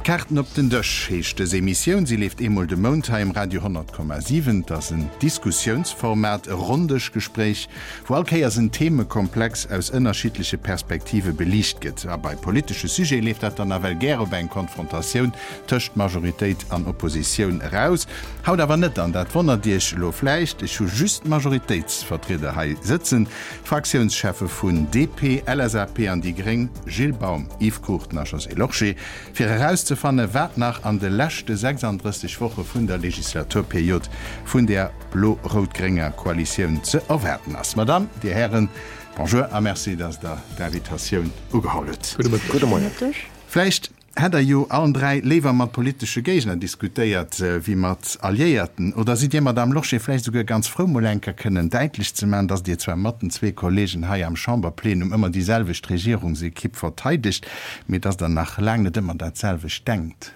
D'Kaarten op den Dësch heescht dës Emissioun. Si leeft eemol de Mount hei um Radio 100,7. Et ass en Diskussiounsformat, e Ronndëschgespréich, wou all Kéiers en Themekomplex aus ënnerschiddleche Perspektive beliicht gëtt. A bei politesche Sujete leeft dat dann nawell gär op eng Konfrontatioun tëscht Majoritéit an Oppositioun eraus. Haut awer net, an dat wonnert Iech elo vläicht, ech hu just d'Majoritéitsvertrieder hei sëtzen, d'Fraktiounscheffe vun DP, LSAP an déi gréng, Gilles Baum, Yves Cruchten a Josée Lorsché, fir erauszefanne wat nach an de leschte 36 Woche vun der Legislaturperiod vun der blo-rout-grénger Koalitioun ze erwaarden ass. Madame, Dir Hären, Bonjour a Merci, dass Der d'Invitatioun ugeholl hutt. Gudde Moien. Vläicht Hätt der jo allen 3 léiwer mat politesche Géigner diskutéiert wéi mat Alliéierten? Oder sidd Dir, Madame Lorsché, vläicht esouguer ganz frou, mol eng Kéier kënnen däitlech ze maachen, datt Dir zwar mat den zwee Kollegen hei am Chamberplenum ëmmer déi selwecht Regierungsekipp verteidegt, mee datt Der nach laang net ëmmer dat selwecht denkt?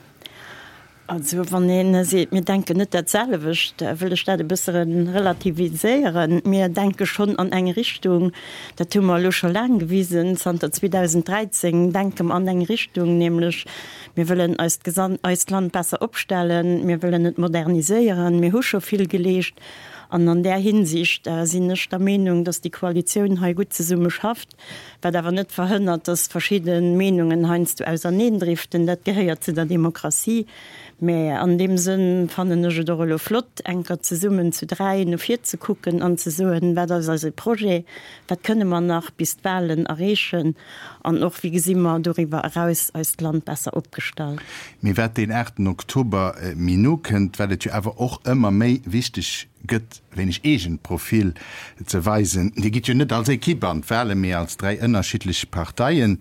Also wann ee seet, mir denken net dat selwecht, wëll ech dat e bësse relativiséieren. Mir denke schonn an eng Richtung, dat hu mer elo scho laang gewisen, zanter 2013 denke mer an eng Richtung, nämlech mir wëllen eist eist Land besser opstellen, mir wëllen et moderniséieren, mir hu scho vill geleescht. An an där Hinsicht sinn ech der Meenung, datt déi Koalitioun hei gutt zesumme schafft. Wat awer net verhënnert, dass verschidde Meenungen heiansdo auserneendriften. Dat gehéiert zu der Demokratie. Mä an deem Sënn fannen ech et och elo flott, enker zesummen zu dräi no vir ze kucken an ze soen, Wat ass eise Projet? Wat kënne mer nach bis d'Wahlen erreechen? An och, wéi gesi mer doriwwer eraus eist Land besser opgestallt? Mee wat deen aachten Oktober méi no kënnt, wat et jo awer och ëmmer méi wichteg gëtt, wéineg eegent Profil ze weisen. Dir gitt jo net als Equipe an d'Wahlen, mee als 3 ënnerschiddlech Parteien.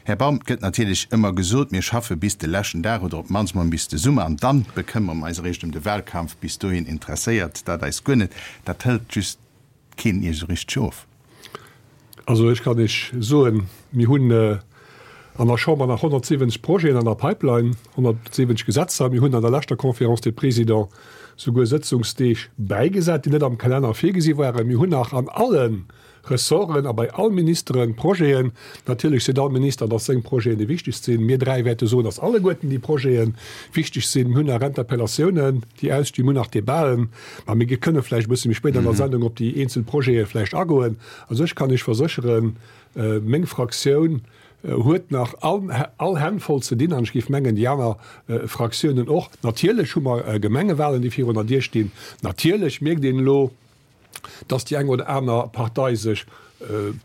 Här Baum, et gëtt natierlech ëmmer gesot, mir schaffe bis de leschten Dag oder op d'mannst mol bis de Summer an dann bekëmmere mer eis eréischt ëm de Wahlkampf. Bis dohin interesséiert dat eis guer net. Dat hëlt just keen Iech esou richteg of. Also ech kann Iech soen, mir hunn an der Chamber nach 170 Projeten an der Pipeline, 170 Gesetzer. Mir hunn an der leschter Conférence des Présidents souguer Sëtzungsdeeg bäigesat, déi net am Kalenner virgesi waren. Mir hunn nach an alle Ressorten a bei all Ministere Projeten. Natierlech seet all Minister, datt seng Projeten déi wichtegst sinn. Mir dräi wäerte soen, datt alleguerten déi Projete wichteg sinn. Mir hunn nach Interpellatiounen, déi ausstinn. Mir hunn nach Debaten. Mä mir kënne vläicht e bësse méi spéit an der Sendung op déi eenzel Projete vläicht agoen. Also ech kann Iech versécheren, meng Fraktioun huet nach all Hänn voll ze dinn an ech géif mengen, déi aner Fraktiounen och. Natierlech hu mer Gemengewahlen, déi virun der Dier stinn. Natierlech mierkt een elo, dass déi eng oder aner Partei sech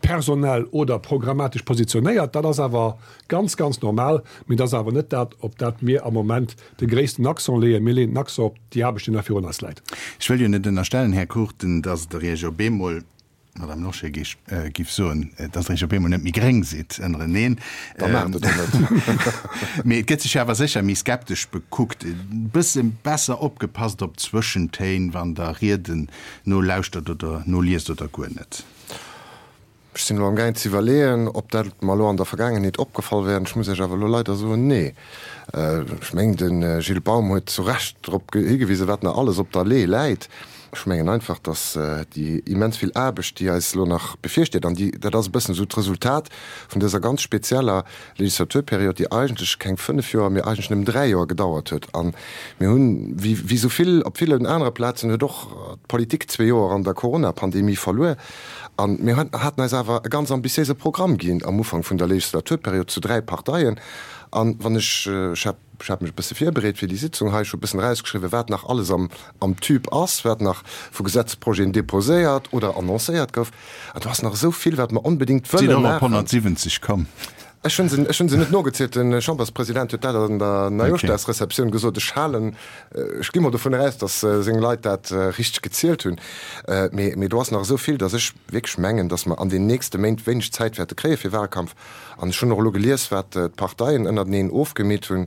personell oder programmatesch positionéiert. Dat ass awer ganz, ganz normal. Mee dat ass awer net dat, op dat mir am Moment de gréissten Accent leeën. Mir leeën den Accent op déi Aarbecht, déi nach virun eis läit. Ech wëll jo net ënnerstellen, Här Cruchten, dass Der Iech op eemol, Madame Lorsché giff soen, dass Der Iech op eemol net méi gréng sidd ënnereneen. Da maacht et och net. Mee et gëtt sech jo awer sécher méi skeptesch bekuckt, e bësse besser opgepasst op d'Zwëschentéin, wann Der Rieden nolauschtert oder noliest oder guer net. Ech sinn elo amgaang ze iwwerleeën, ob dat mer elo an der Vergaangenheet opgefall wär. Ech muss Iech awer elo leider soen, nee. Ech mengen, de Gilles Baum huet zu Recht drop higewisen, wat nach alles op der Lee läit. Ech mengen einfach, datt déi immens vill Aarbecht, déi eis elo nach bevirsteet, an déi, dat ass e bëssen esou d'Resultat vun dëser ganz spezieller Legislaturperiod, déi eigentlech keng fënnef Joer, mee eigentlech nëmmen dräi Joer gedauert huet. A mir hunn, wéi esou vill op villen anere Plazen, huet och d'Politik zwee Joer an der Coronapandemie verluer. A mir haten eis awer e ganz ambitiéise Programm ginn am Ufank vun der Legislaturperiod zu dräi Parteien. A wann ech, ech hat, ech hat mech e bësse virbereet fir déi Sitzung hei, ech hu e bëssen erausgeschriwwen, wat nach alles am, am Tube ass, wat nach vu Gesetzprojeten déposéiert oder annoncéiert gouf. An do ass nach esou vill, wat mer onbedéngt wëlle maachen. Sidd och op 170 komm? Ech hunn se, ech hunn se net nogezielt. De Chamberspresident huet dat an der Neijooschdagsreceptioun gesot. Ech halen, ech gi mol dovun eraus, datt seng Leit dat richteg gezielt hunn. Mee, mee do ass nach esou vill, datt ech wierklech mengen, datt mer an den nächste Méint wéineg Zäit wäerte kréie fir Wahlkampf. An ech hunn och elo gelies, wat d'Parteien ënnerteneen ofgemeet hunn.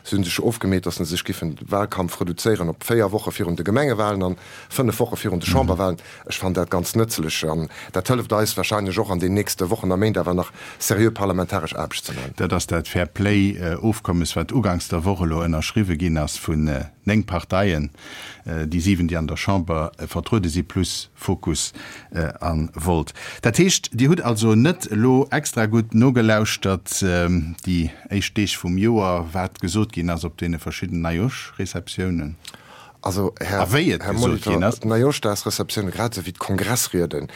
Se hu sech ofgemeet, datt se sech giffen de Wahlkampf reduzéieren op 4 Woche virun de Gemengewahlen an 5 Woche virun de Chamberwahlen. Ech fannen dat ganz nëtzlech an dat hëlleft eis wahrscheinlech och an den nächste Wochen a Méint awer nach seriö parlamentaresch Aarbecht. Aarbecht ze maachen. Dat ass dat Fair-Play-Ofkommes, wat uganks der Woch elo ënnerschriwwe ginn ass vun 9 Parteien, déi 7, déi an der Chamber vertruede si, plus Fokus a Volt. Dat heescht, Dir hutt also net elo extra gutt nogelauschtert déi éischt Deeg vum Joer, wat gesot ginn ass op deene verschiddenen Neijoschreceptiounen? Also, Här, A wéi et Här gesot ginn Molitor, ass. d'Neijoschdagsreceptioune grad esou wéi d'Kongressrieden,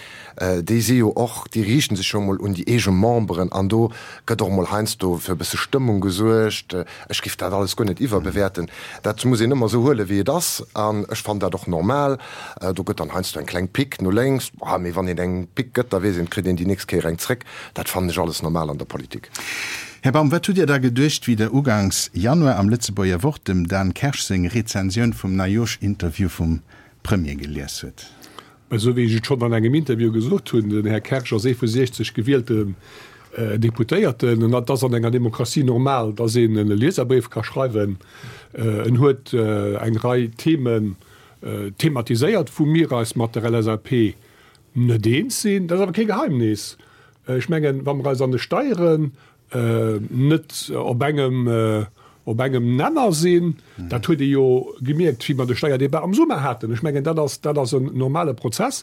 déi si jo och, déi riichten sech jo emol un déi eege Memberen an do gëtt och emol heiansdo fir e bësse Stëmmung gesuergt. Ech géif dat alles guer net iwwerbewäerten. Dat muss een ëmmer esou huelen, wéi et ass an ech fannen dat och normal. Do gëtt dann heiansdo eng kleng Pick no lénks, mee wann een eng Pick gëtt, da weess een, et kritt een déi nächst Kéier eng zréck. Dat fannen ech alles normal an der Politik. Här Baum, wat hutt Dir da geduecht, wéi Der ugangs Januar am Lëtzebuerger Wort dem Dan Kersch seng Rezensioun vum Neijoersch-Interview vum Premier gelies hutt? Esou wéi ech et schonn an engem Interview gesot hunn, den Här Kersch ass ee vu 60 gewielten Deputéierten. An et ass an enger Demokratie normal, datt een e Lieserbréif ka schreiwen. En huet eng Rei Themen thematiséiert, wou mir eis mat der LSAP net eens sinn. Dat ass awer kee Geheimnis. Ech mengen, wa mer eis an de Steieren net op engem, op engem Nenner sinn, dat huet ee jo gemierkt, wéi mer de Steierdebat am Summer haten. Ech mengen, dat ass, dat ass en normale Prozess.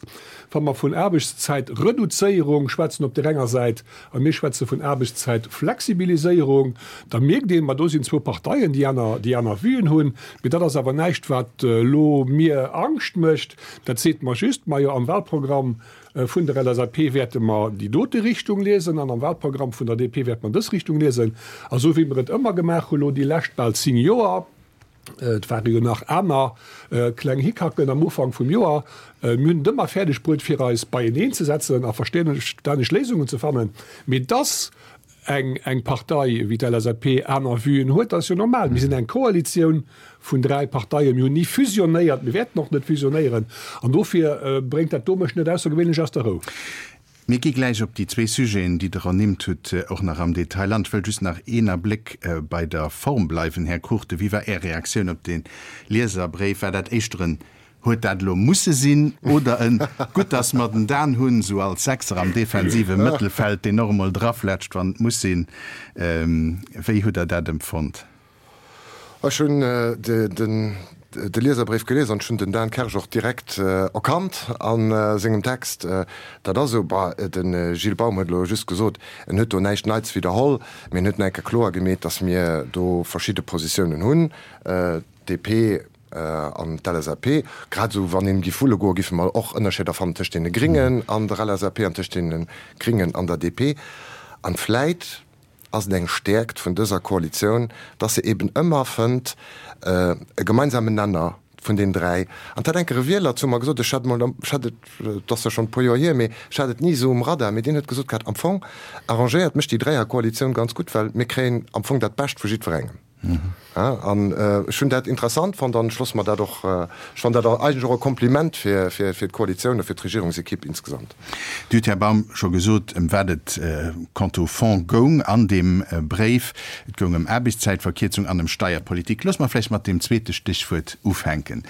Wa mer vun Aarbechtszäitreduzéierung schwätzen op där enger Säit a mir schwätze vun Aarbechtszäitflexibiliséierung, da mierkt een, ma do sinn zwou Parteien, déi aner, déi aner Vuen hunn. Mee dat ass awer näischt, wat elo mir Angscht mécht. Dat seet mer just, majo, am Wahlprogramm vun der LSAP wäerte mer déi dote Richtung liesen an am Wahlprogramm vun der DP wäerte mer dës Richtung liesen. A sou wéi mer et ëmmer gemaach hu lo déi lescht bal 10 Joer, et ware jo nach aner kleng Hickhacken am Ufank vum Joer, mir hunn et ëmmer fäerdeg bruet fir eis beieneen ze setzen a verstänneg Léisungen ze fannen. Mee dass eng eng Partei wéi d'LSAP aner Vuen huet, dat ass jo normal. Mir sinn eng Koalitioun vun 3 Parteien, mir hunn ni fusionéiert, mir wäerten och net fusionéieren an dofir bréngt dat do mech net aussergewéinlech aus der Rou. Mir gi gläich op déi zwee Sujeten, déi Der ernimmt hutt, och nach am Detail an. Ech wëll just nach een Abléck bei der Form bleiwen. Här Cruchten, wéi war Är Reaktioun op dee Lieserbréif? War dat éischter en Huet dat elo musse sinn oder en Gutt, dass mer den Dan hunn, sou als Sechser am defensive Mëttelfeld, deen och emol draflätscht, wann et muss sinn? Wéi hutt Der dat empfonnt? Ech hunn de Lieserbréif gelies an ech hunn den Dan Kersch och direkt erkannt a sengem Text. Dat ass esou. Bah, de Gilles Baum huet elo just gesot, en huet do näischt Neits widderholl, mee en huet nach eng Kéier kloer gemeet, dass mir do verschidde Positiounen hunn. DP an d'LSAP, grad esou wann een giff wulle goen, giffe mer och Ënnerscheeder fannen tëscht deene Gringen an der LSAP an tëscht deene Gringen an der DP. An vläit ass et eng Stäerkt vun dëser Koalitioun, dass se eben ëmmer fënnt e gemeinsamen Nenner vun den 3. An dat hat enker e Wieler zu mer gesot, ech hat emol, ech hat et, et ass jo schonn e puer Joer hier, mee ech hat et ni esou um Radar, mee deen huet gesot gehat, am Fong arrangéiert mech déi Dräierkoalitioun ganz gutt, well mir kréien am Fong dat Bescht vu jiddwerengem. An ech hunn dat interessant fonnt an ech loosse mer dat och, ech fannen dat eigentlech och e Kompliment fir d'Koalitioun a fir d'Regierungsekipp insgesamt. Dir hutt, Här Baum, scho gesot, ëm wat et quant au fond goung an deem Bréif. Et goung ëm Aarbechtszäitverkierzung an ëm Steierpolitik. Loosse mer vläicht mat deem zweete Stéchwuert ufänken.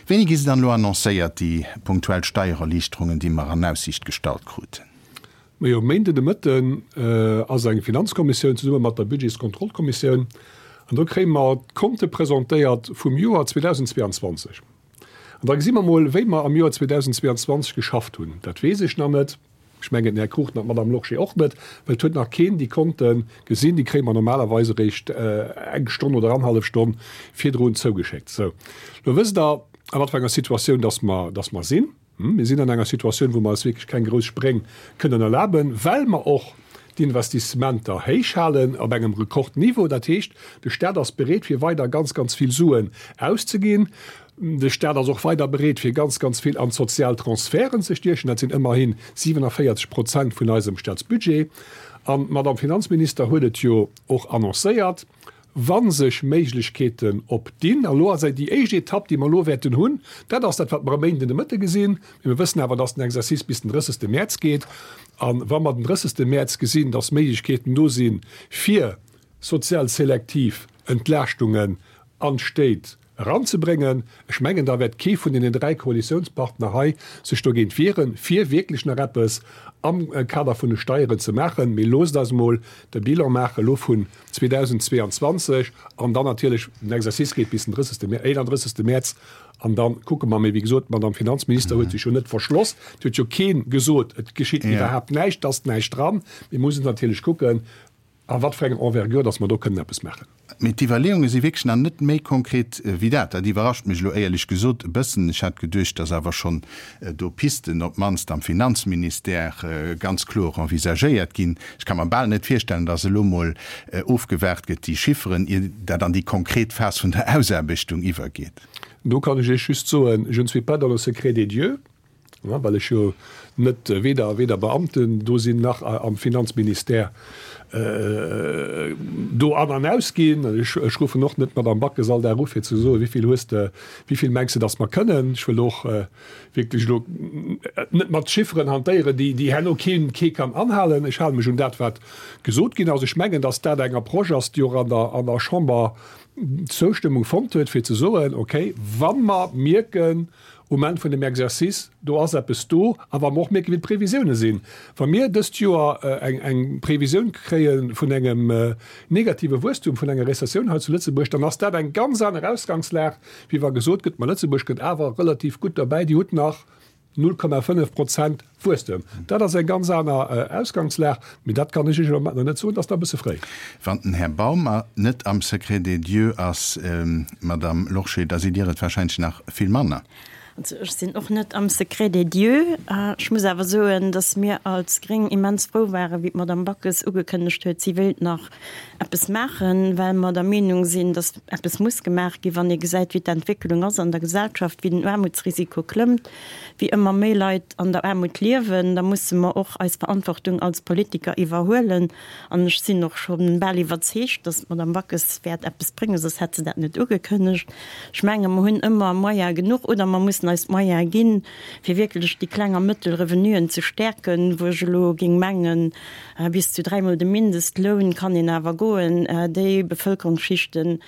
Wéini gi se dann elo annoncéiert, déi punktuell Steiererliichterungen, déi mer an Aussiicht gestallt kruten? Majo, e Méinden de Mëtten ass eng Finanzkommissioun zesumme mat der Budgetskontrollkommissioun an do kréie mer d'Konte presentéiert vum Joer 2022. An da gesi mer mol, wéi mer am Joer 2022 geschafft hunn. Dat weess ech nach net, ech mengen den Här Cruchten an d'Madame Lorsché och net, well et huet nach keen déi Konte gesinn. Déi kréie mer normalerweis eréischt eng Stonn oder annerhallef Stonn virdrun zougeschéckt. Sou, lo wësst Der, a wat fir enger Situatioun dass mer, dass mer sinn. Mir sinn an enger Situatioun, wou mer eis wierklech keng grouss Spréng kënnen erlaben, well mer och d'Investissementer héich halen op engem Rekordniveau. Dat heescht, de Stat ass bereet, fir weider ganz, ganz vill Suen auszeginn. De Stat ass och weider bereet, fir ganz, ganz vill an d'sozial Transferten ze stiechen. Dat sinn ëmmerhi 47 Prozent vun eisem Statsbudget. An d'Madame Finanzminister huet et jo och annoncéiert, Wa sech Méiglechkeeten opdinn, an elo ass déi éischt Etapp, déi mer elo wäerten hunn, dat ass dat, wat mer e Méinden de Mëtte gesinn, mee mir wëssen awer, dass den Exercice bis den 30. Mäerz geet, a wa mer den 30. Mäerz gesinn, dass Méiglechkeeten do sinn, fir sozial selektiv Entlaaschtungen an d'Stéit. eranzebréngen. Ech mengen, da wäert kee vun deenen 3 Koalitiounspartner hei sech dogéint wieren, fir wierklech nach eppes am Kader vun de Steieren ze maachen. Mee loosst eis emol de Bilan maache elo vun 2022 an dann natierlech, den Exercice geet bis den 30. 31. Mäerz an da kucke mer. Mee wéi gesot, d'Madame Finanzminister huet sech jo net verschloss. Et huet jo kee gesot, et geschitt iwwerhaapt näischt, et ass näischt dran. Mir mussen natierlech kucken, a wat fir enger Envergure dass mer do kënnen eppes maachen. Mee d'Iwwerleeunge si wierklech nach net méi konkret wéi dat. Dat iwwerrascht mech elo éierlech gesot e bëssen. Ech hat geduecht, dass awer schonn do Pisten, op d'mannst am Finanzministère, ganz kloer envisagéiert ginn. Ech ka mer bal net virstellen, dass elo mol ofgewaart gëtt, déi Chifferen, ier dat an déi konkret Phas vun der Ausaarbechtung iwwergeet. Do kann ech Iech just soen, Je ne suis pas dans le secret des dieux. Well ech jo net weder weder Beamten do sinn nach am Finanzministère do an an aus ginn. Ech ruffen och net d'Madame Backes all Dag u fir ze soen, wéi vill hues de, wéi vill mengs de, datt mer kënnen. Ech wëll och wierklech elo net mat Chifferen hantéieren, déi déi herno keen kee kann anhalen. Ech hale mech un dat wat gesot ginn ass. Ech mengen, datt dat eng Approche ass, déi och an der an der Chamber Zoustëmmung fonnt huet, fir ze soen, okay, wa mer mierken, Um Enn vun dem Exercice, do ass eppes do. A wa mer och mierken, wéi d'Previsioune sinn, wa mir dëst Joer eng Previsioun kréie vun engem negative Wuesstum, vun enger Rezessioun hei zu Lëtzebuerg, dann ass dat eng ganz aner Ausgangslag, wéi wa gesot gëtt, ma Lëtzebuerg kënnt awer relativ gutt derbäi, Dir hutt nach 0,5 Prozent Wuesstem. Dat ass eng ganz aner Ausgangslag. Mee dat kann ech Iech elo nach net soen, dat ass nach e bësse fréi. Wann den Här Baum net am Secret des dieux ass, Madame Lorsché, da sidd Dir et wahrscheinlech nach vill manner. Also ech sinn och net am Secret des dieux. Ech muss awer soen, datt mir als Gréng immens frou waren, wéi d'Madame Backes ugekënnegt huet, si wéilt nach eppes maachen, well mer der Meenung sinn, datt eppes muss gemaach ginn, wann ee gesäit, wéi d'Entwécklung ass an der Gesellschaft, wéi den Aarmutsrisiko klëmmt. wéi ëmmer méi Leit an der Aarmut liewen, da musse mer och eis Verantwortung als Politiker iwwerhuelen. An ech sinn och scho bal iwwerzeegt, datt d'Madame Backes wäert eppes bréngen, soss hätt se dat net ugekënnegt. Ech menge mer hunn ëmmer Moyene genuch oder mer mussen eis d'Moyene ginn, fir wierklech déi kleng a mëttel Revenuen ze stäerken, wou ech elo géing mengen, bis zu dräimol de Mindestloun kann een awer goen, déi Bevëlkerungsschichten,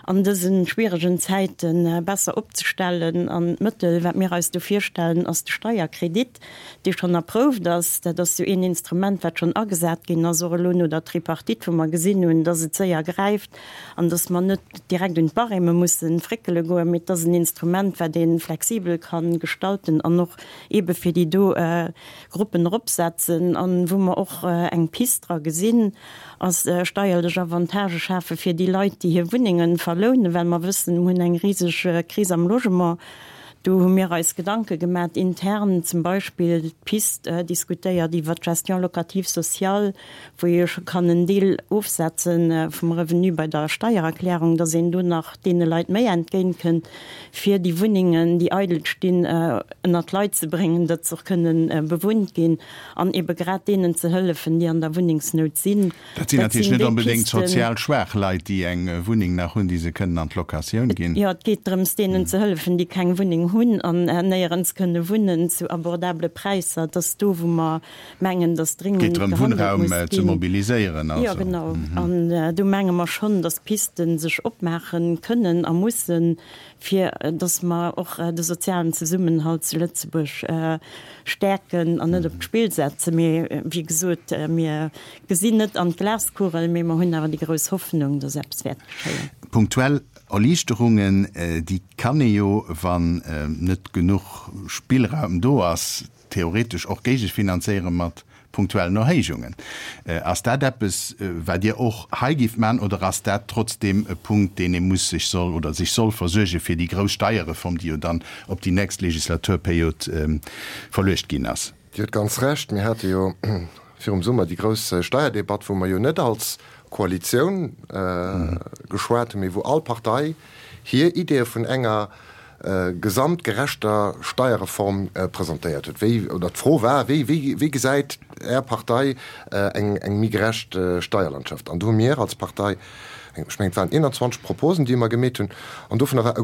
an dëse schwieregen Zäite besser opzestellen. An d'Mëttel, wat mir eis do virstellen, ass de Steierkredit, dee schonn approuft ass. Dat ass jo een Instrument, wat schonn agesat ginn ass, och elo no der Tripartite, wou mer gesinn hunn, dass et séier gräift an dass mer net direkt un d'Barême mussen fréckele goen, mee et ass en Instrument, wat ee flexibel ka gestalten an och eebe fir déi do Gruppen eropsetzen an wou mer och eng Pist dra gesinn, ass steierlech Avantagë schafe fir déi Leit, déi hir Wunnengen verlounen, well mer wëssen, mer hunn eng riseg Kris am Logement. Do hu mir eis Gedanke gemat intern, zum Beispill d'Pist diskutéiert iwwert d'Gestion locative sociale, wou ee jo scho kann en Deel ofsetze vum Revenu bei der Steiererklärung, dass een do nach deene Leit méi entgéint kënnt, fir déi Wunnengen, déi eidel stinn, ënnert d'Leit ze bréngen, datt se och kënnen bewunnt ginn. An ebe grad deenen ze hëllefen, déi an der Wunnengsnout sinn. Dat sinn natierlech net onbedéngt sozial schwaach Leit, déi eng Wunneng nach hunn, déi se kënnen an d'Locatioun ginn. Jo, et geet drëms, deenen ze hëllefen, déi keng Wunneng hunn an néierens kënne wunnen, zu abordabele Präisser. Et ass do, wou mer mengen, datt dréngend gehandelt muss ginn. Geet drëm, Wunnraum ze mobiliséieren also. Jo, genau. An do menge mer schonn, datt Piste sech opmaache kënnen a mussen, fir dass mer och de sozialen Zesummenhalt zu Lëtzebuerg stäerken an net op d'Spill setzen. Mee wéi gesot, mir gesinn net an d'Glaskugel, mee mer hunn awer déi grouss Hoffnung, dass eppes wäert geschéien. Punktuell Erliichterungen, déi kann ee jo, wann net genuch Spillraum do ass, theoretesch och géigefinanzéiere mat punktuellen Erhéijungen. Ass dat eppes, wat Dir och hei géift maachen, oder ass dat trotzdeem e Punkt, deen ee muss sech soll oder sech soll versuerge fir déi grouss Steierreform, déi jo dann op déi nächst Legislaturperiod verluecht ginn ass? Dir hutt ganz Recht. Mir hate jo virum Summer déi grouss Steierdebatt, wou mer jo net als Koalitioun geschwat hunn, mee wou all Partei hir Ideeë vun enger gesamtgerechter Steierreform presentéiert huet. Wéi, oder d'Fro war, wéi, wéi, wéi gesäit Är Partei eng, eng méi gerecht Steierlandschaft? An do hu mir als Partei, ech mengen et waren 21 Proposen, déi mer gemeet hunn, an dovunner war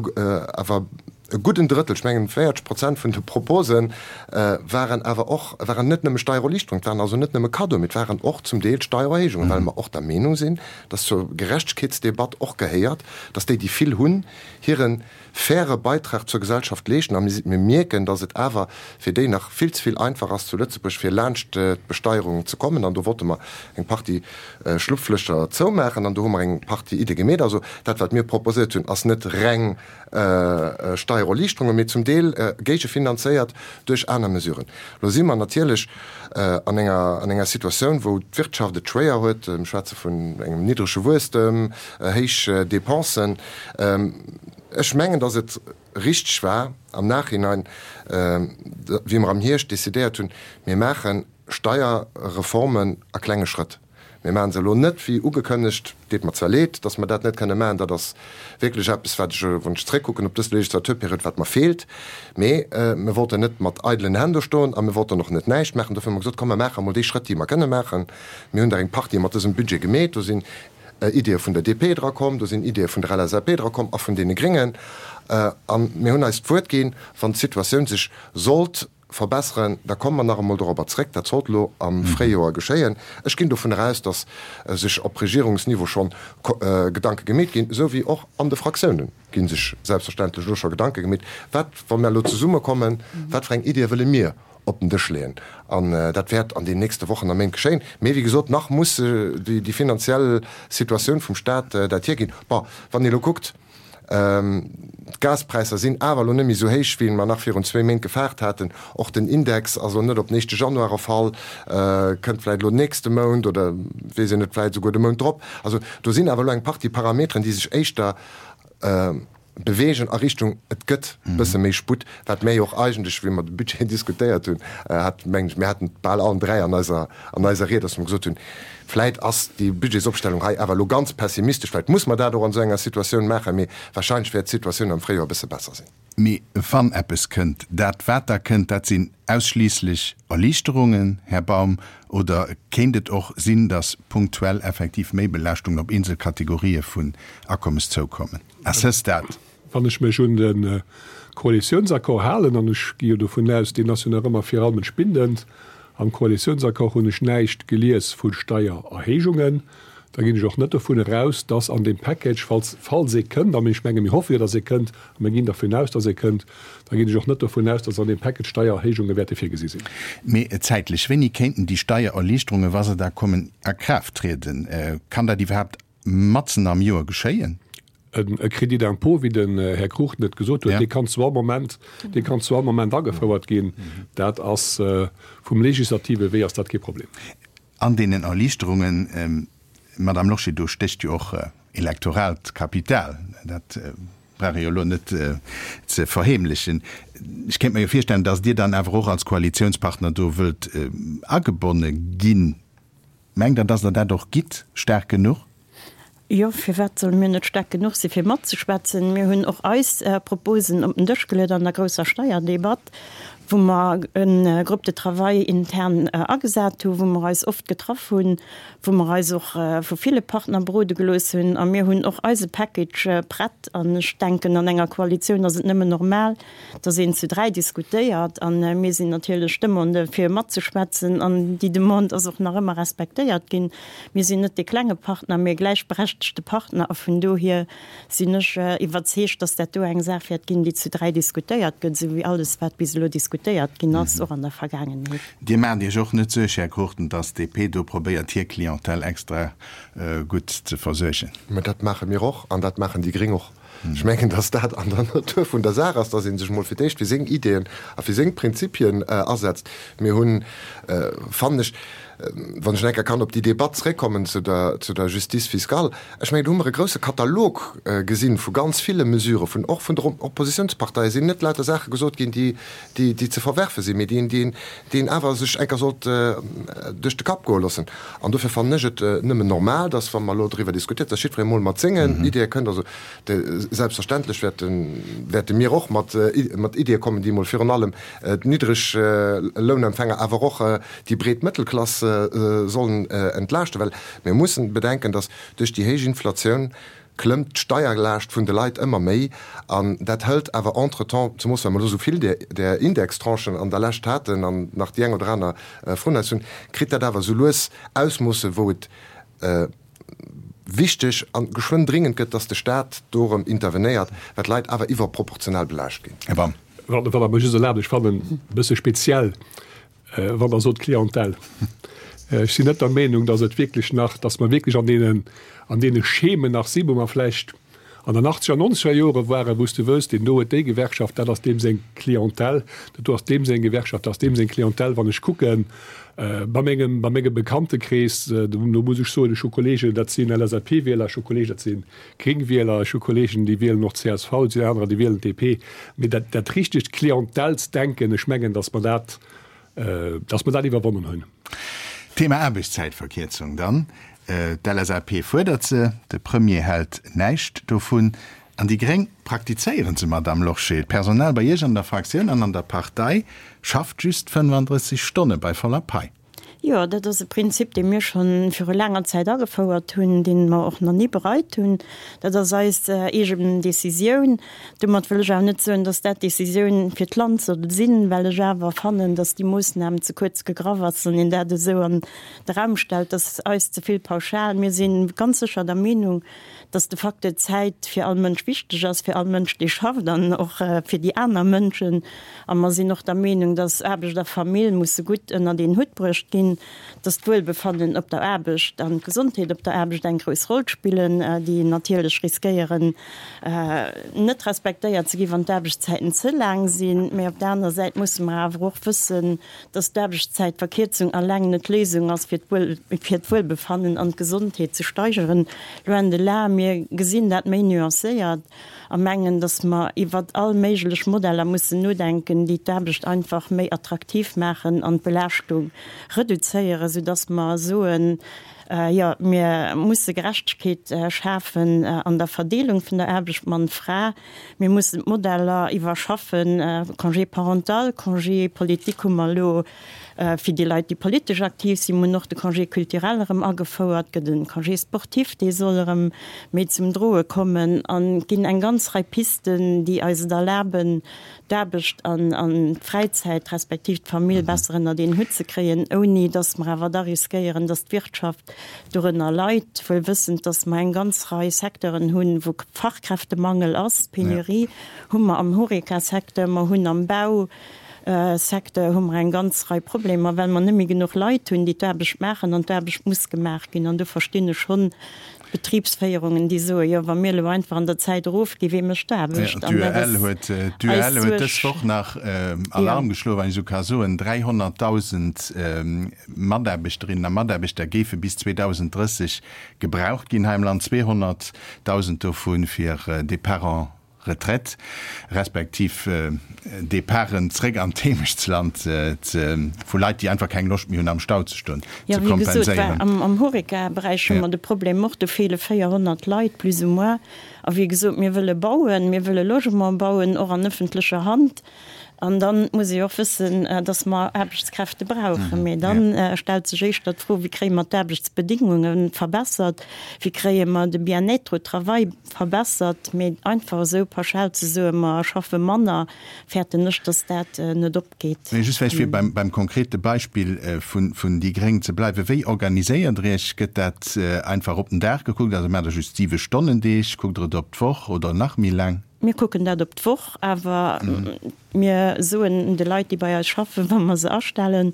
awer. E gudden Drëttel, ech mengen 40 Prozent vun de Propose waren awer och, waren net nëmme Steiererliichterungen, et waren also net nëmme Cadeauen, mee et waren och zum Deel Steiererhéijungen, well mer och der Meenung sinn, dass zur Gerechtegkeetsdebatt och gehéiert, dass déi, déi vill hunn, hire faire Beitrag zur Gesellschaft leeschten. A mir mierken, dass et awer fir déi nach vill ze vill einfach ass zu Lëtzebuerg, fir laanscht d'Besteierung ze kommen. An do wollte mer eng Partie Schlupflëcher zoumaachen an do hu mer eng Partie Iddie gemeet. Also dat, wat mir proposéiert hunn, ass net reng Steiererliichterungen, mee zum Deel géigefinanzéiert duerch aner Mesuren. Elo si mer natierlech an enger an enger Situatioun, wou d'Wirtschaft et schwéier huet. Mir schwätze vun engem niddrege Wuesstem, héich Dépensen. Ech mengen, datt et richteg war am Nachhinein, wéi mer am Hierscht decidéiert hunn, mir maache Steierreformen a klenge Schrëtt. Mir maache se elo net wéi ugekënnegt. Deet mer zwar leed, datt mer dat net kënne maachen. Dat ass wierklech eppes, wat ech, wann ech zréckkucken op dës Legislaturperiod, wat mer feelt. Mee mir wollten net mat eidelen Hänn do stoen a mir wollten och net näischt maachen. Dofir hu mer gesot, Komm, mer maache emol déi Schrëtt, déi mer kënne maachen. Mir hunn der eng Partie mat dësem Budget gemeet. Do sinn Ideeë vun der DP drakomm, do sinn Ideeë vun der LSAP drakomm a vun deene Gréngen. A mir hunn eis d'Wuert ginn, wann d'Situatioun sech sollt verbesseren, da komme mer nach emol dorobber zréck. Dat sollt elo am Fréijoer geschéien. Ech ginn dovun eraus, datt sech op Regierungsniveau schonn Gedanke gemeet ginn, esou wéi och an de Fraktioune gi sech selbstverständlech elo scho Gedanke gemeet, wat, wa mer elo zesummekommen, wat fir eng Iddie wëlle mir op den Dësch leeën. An dat wäert an den nächste Wochen a Méint geschéien. Mee wéi gesot, nach muss déi finanziell Situatioun vum Stat dat hierginn. Bon, wann ee elo kuckt, D'Gaspräisser sinn awer elo net méi esou héich, wéi mer nach virun zwéi Méint gefaart haten. Och den Index ass elo net op den éischte Januar erfall, kënnt vläicht elo nächste Mount oder weess een net, vläicht esouguer de Mount drop. Also do sinn awer elo eng Partie Parameteren, déi sech éischter beweegen a Richtung, et gëtt e bësse méi Sputt, wat mir jo och eigentlech, wéi mer de Budget diskutéiert hunn, hat, mengen ech, mir haten et bal allen dräi an eiser, an eiser Ried, dass mer gesot hunn, Vläit ass déi Budgetsopstellung hei awer elo ganz pessimistesch, vläit muss mer dat och an esou enger Situatioun maachen, mee wahrscheinlech wäert d'Situatioun am Fréijoer e bësse besser sinn. Mee wann eppes kënnt, dat wat da kënnt, dat sinn ausschliisslech Erliichterungen, Här Baum, oder kéint et och sinn, datt punktuell effektiv Méibelaaschtungen op eenzel Kategorië vun Akommes zoukommen? À ce stade. Wann ech mech un de Koalitiounsaccord halen, an ech gi jo dovun aus, deen ass jo nach ëmmer viralmech bindend, am Koalitiounsaccord hunn ech näischt gelies vu Steiererhéijungen, da ginn ech och net dovun eraus, dass an deem Package, falls, falls ee kënnt, a ech menge mir hoffe jo, dass ee kënnt, a mir ginn dervun aus, dass ee kënnt, da ginn ech och net dovun aus, dass an deem Package Steiererhéijunge wäerte virgesi sinn. Mee zäitlech, wéini kéinten déi Steiererliichterungen, wa se da kommen, a Kraaft trieden? Kann dat iwwerhaapt matzen am Joer geschéien? E Crédit d'impôt, wéi den Här Cruchten et gesot huet, dee kann zu all Moment, dee kann zu all Moment agefouert ginn. Dat ass vum legislative Wee ass dat kee Problem. An deenen Erliichterungen, Madame Lorsché, do stécht jo och elektoraalt Kapital. Dat brauch ee jo elo net ze verheemlechen. Ech kéint mer jo virstellen, datt Dir dann awer och als Koalitionspartner do wëllt agebonne ginn. Mengt Der, datt Der dat och gitt, staark genuch? Jo, firwat solle mir net staark genuch si fir matzeschwätzen? Mir hunn och eis Proposen op den Dësch geluet an der grousser Steierdebatt, wou mer e Groupe de travail intern agesat hu, wou mer eis oft getraff hunn, wou mer eis och vu ville Partner berode gelooss hunn. A mir hunn och eise Package prett. An ech denken, an enger Koalitioun ass et nëmmen normal, dass een zu 3 diskutéiert an mir sinn natierlech d'Demande fir matzeschwätzen an déi Demande ass och nach ëmmer respektéiert ginn. Mir sinn net dee klenge Partner, mee e gläichberechtegte Partner a vun dohier sinn ech iwwerzeegt, dass dat do eng Saach wäert ginn, déi zu 3 diskutéiert gëtt, esou wéi alles wat bis elo diskutéiert ginn ass, och an der Vergaangenheet. Dir maacht Iech och net Suerg, Här Cruchten, dass d'DP do probéiert hir Clientèle extra gutt ze versuergen? Mä dat maache mir och an dat maachen déi Gréng och. Ech mengen, dass dat an der Natur vun der Saach ass, dass ee sech emol fir d'éischt fir seng Ideeën a fir seng Prinzipien asetzt. Mir hunn, fannen ech, wann ech nach eng Kéier kann op déi Debatt zréckkommen zu der, zu der Justice fiscale, ech mengen, do hu mer e grouse Katalog gesinn vu ganz ville Mesuren, vun, och vun der Oppositionsparteie sinn net lauter Saache gesot ginn, déi, déi, déi ze verwerfe sinn, mee déi een, déi een, déi een awer sech eng Kéier sollt duerch de Kapp goe loossen. An dofir fannen ech et nëmmen normal, dass, wa mer elo driwwer diskutiert, dass jiddweree mol mat sengen Ideeë kënnt. Also de, selbstverständlech wäerten, wäerte mir och mat, mat Ideeë kommen, déi mol virun allem d'Niddreg-Lounempfänger, awer och déi breet Mëttelklass sollen entlaaschten. Well mir mussen bedenken, dass duerch déi héich Inflatioun. Klëmmt d'Steierlaascht vun de Leit ëmmer méi an dat hëlt awer entretemps, zemoos well mer elo esou vill där Indextranchen an der Lescht haten an nach déi eng oder aner vrun eis hunn, kritt dat awer esou lues Ausmoosse wou et wichteg a geschwënn dringend gëtt, dass de Stat do erëm intervenéiert, well d'Leit awer iwwerproportional belaascht ginn. Här Baum. Wann Der mer just erlaabt, ech fannen e bësse speziell, Wann Der sot Clientèle, ech sinn net der Meenung, datt et wierklech nach, datt mer wierklech an deenen, an deene Schemen nach sinn, wou mer vläicht an den achtzeger, nonzeger Jore waren, wou s de wësst, deen do huet déi Gewerkschaft, dat ass deem seng Clientèle, dat do ass deem seng Gewerkschaft, dat ass deem seng Clientèle. Wann ech kucke bei mengem, bei mengem Bekanntekrees, do muss ech soen, ech hu Kollegen, dat sinn LSAP-Wieler, ech hu Kollegen, dat si Gréng-Wieler, ech hu Kollegen, déi wielen och csv, et sinn anerer, déi wielen DP. Mee dat, dat richtegt Clientèlesdenken, ech mengen, datt mer dat, datt mer dat iwwerwonnen hunn. Thema Aarbechtszäitverkierzung dann. D'LSAP fuerdert se, de Premier hält näischt dovun an déi Gréng praktizéieren se, Madamm Lorsché. D'Personal bei Iech an der Fraktioun an an der Partei schafft just 35 Stonne bei voller Pai. Jo, dat ass e Prinzip, dee mir scho viru laanger Zäit agefouert hunn, dee mer och nach ni bereit hunn. Dat ass eis eegen Décisioun. Domat wëll ech awer net soen, dass dat d'Décisioun fir d'Land soll sinn, well ech awer fannen, dass déi Moossnam ze kuerz gegraff ass, wann een dat esou an de Raum stellt. Dat ass eis ze vill pauschal. Mir si ganz sécher der Meenung, dass de Facteur Zäit fir all Mënsch wichteg ass, fir all Mënsch, dee schafft an och fir déi aner Mënschen. A mer sinn och der Meenung, dass Aarbecht a Famill musse gutt ënnert een Hutt bruecht ginn, dass d'Wuelbefannen op der Aarbecht an d'Gesondheet op der Aarbecht eng grouss Roll spillen, déi natierlech riskéieren, net respektéiert ze ginn, wann d'Aarbechtszäiten ze laang sinn. Mä op der anerer Säit musse mer awer och wëssen, dass d'Aarbechtszäitverkierzung alleng net d'Léisung ass, fir d'Wuelbefannen an d'Gesondheet ze steigeren, loin de là. Mir gesinn dat méi nuancéiert a mengen, dass mer iwwert all méiglech Modeller mussen nodenken, déi d'Aarbecht einfach méi attraktiv maachen an d'Belaaschtung reduzéieren, soudass mer soen, Jo, mir musse Gerechtegkeet schafen an der Verdeelung vun der Aarbecht Mann-Fra. Mir mussen d'Modeller iwwerschaffen, Congé parental, Congé politique hu mer elo fir déi Leit, déi politesch aktiv sinn. Mir hunn och de Congé culturel erëm agefouert, gëtt e Congé sportif, dee soll erëm méi zum Droe kommen. An et ginn eng ganz Rei Pisten, déi eis et erlaben, d'Aarbecht an d'Fräizäit respektiv d'Famill besser ënnert een Hutt ze kréien, ouni datt mer awer da riskéieren, datt d'Wirtschaft dorënner leit, wuel wëssend, datt mer eng ganz Rei Secteuren hunn, wou Fachkräftemangel ass. Penurie hu mer am Horeca-Secteur, mer hunn am Bausecteur hu mer eng ganz Rei Problemer, well mer net méi genuch Leit hunn, déi d'Aarbecht maachen, an d'Aarbecht muss gemaach ginn. An do verstinn ech schonn, Betribsféierungen, déi soen, jo, wa mir elo einfach an der Zäit erofginn, wee mécht d'Aarbecht? An dat ass D'UEL huet dës Woch nach Alarm geschloen, wann ech esou ka soen, 300.000 Mataarbechterinnen a Mataarbechter géife bis 2030 gebraucht ginn hei am Land, 200.000 dovu fir Départ en Retraite, respektiv Departen zréck an d'Heemechtsland vu Leit, déi einfach keng Loscht méi hunn am Stau ze stoen, ze kompenséieren. Jo, wéi gesot, war am Horeca-Beräich hu mer de Problem och, do feele 400 Leit plus ou moins. A wéi gesot, mir wëlle bauen, mir wëlle Logement bauen, och an ëffentlecher Hand. An da muss ee och wëssen, dass mer Aarbechtskräfte brauchen. Mee da stellt sech éischter d'Fro, Wéi kréie mer d'Aarbechtsbedingunge verbessert? Wéi kréie mer de Bien-être au travail verbessert? Mee einfach esou pauschal ze soen, mer schaffe manner, fäerten ech, dass dat net opgeet. Mee just vläicht fir beim konkrete Beispill vun déi Gréng ze bleiwen, Wéi organiséiert Der Iech? Gëtt dat einfach op den Dag gekuckt? Also maacht Der just Siwe-Stonnen-Deeg? Kuckt Der et op d'Woch oder nach méi laang? Mir kucken dat op d'Woch, awer mir soen de Leit, déi bei eis schaffen, wa mer se astellen,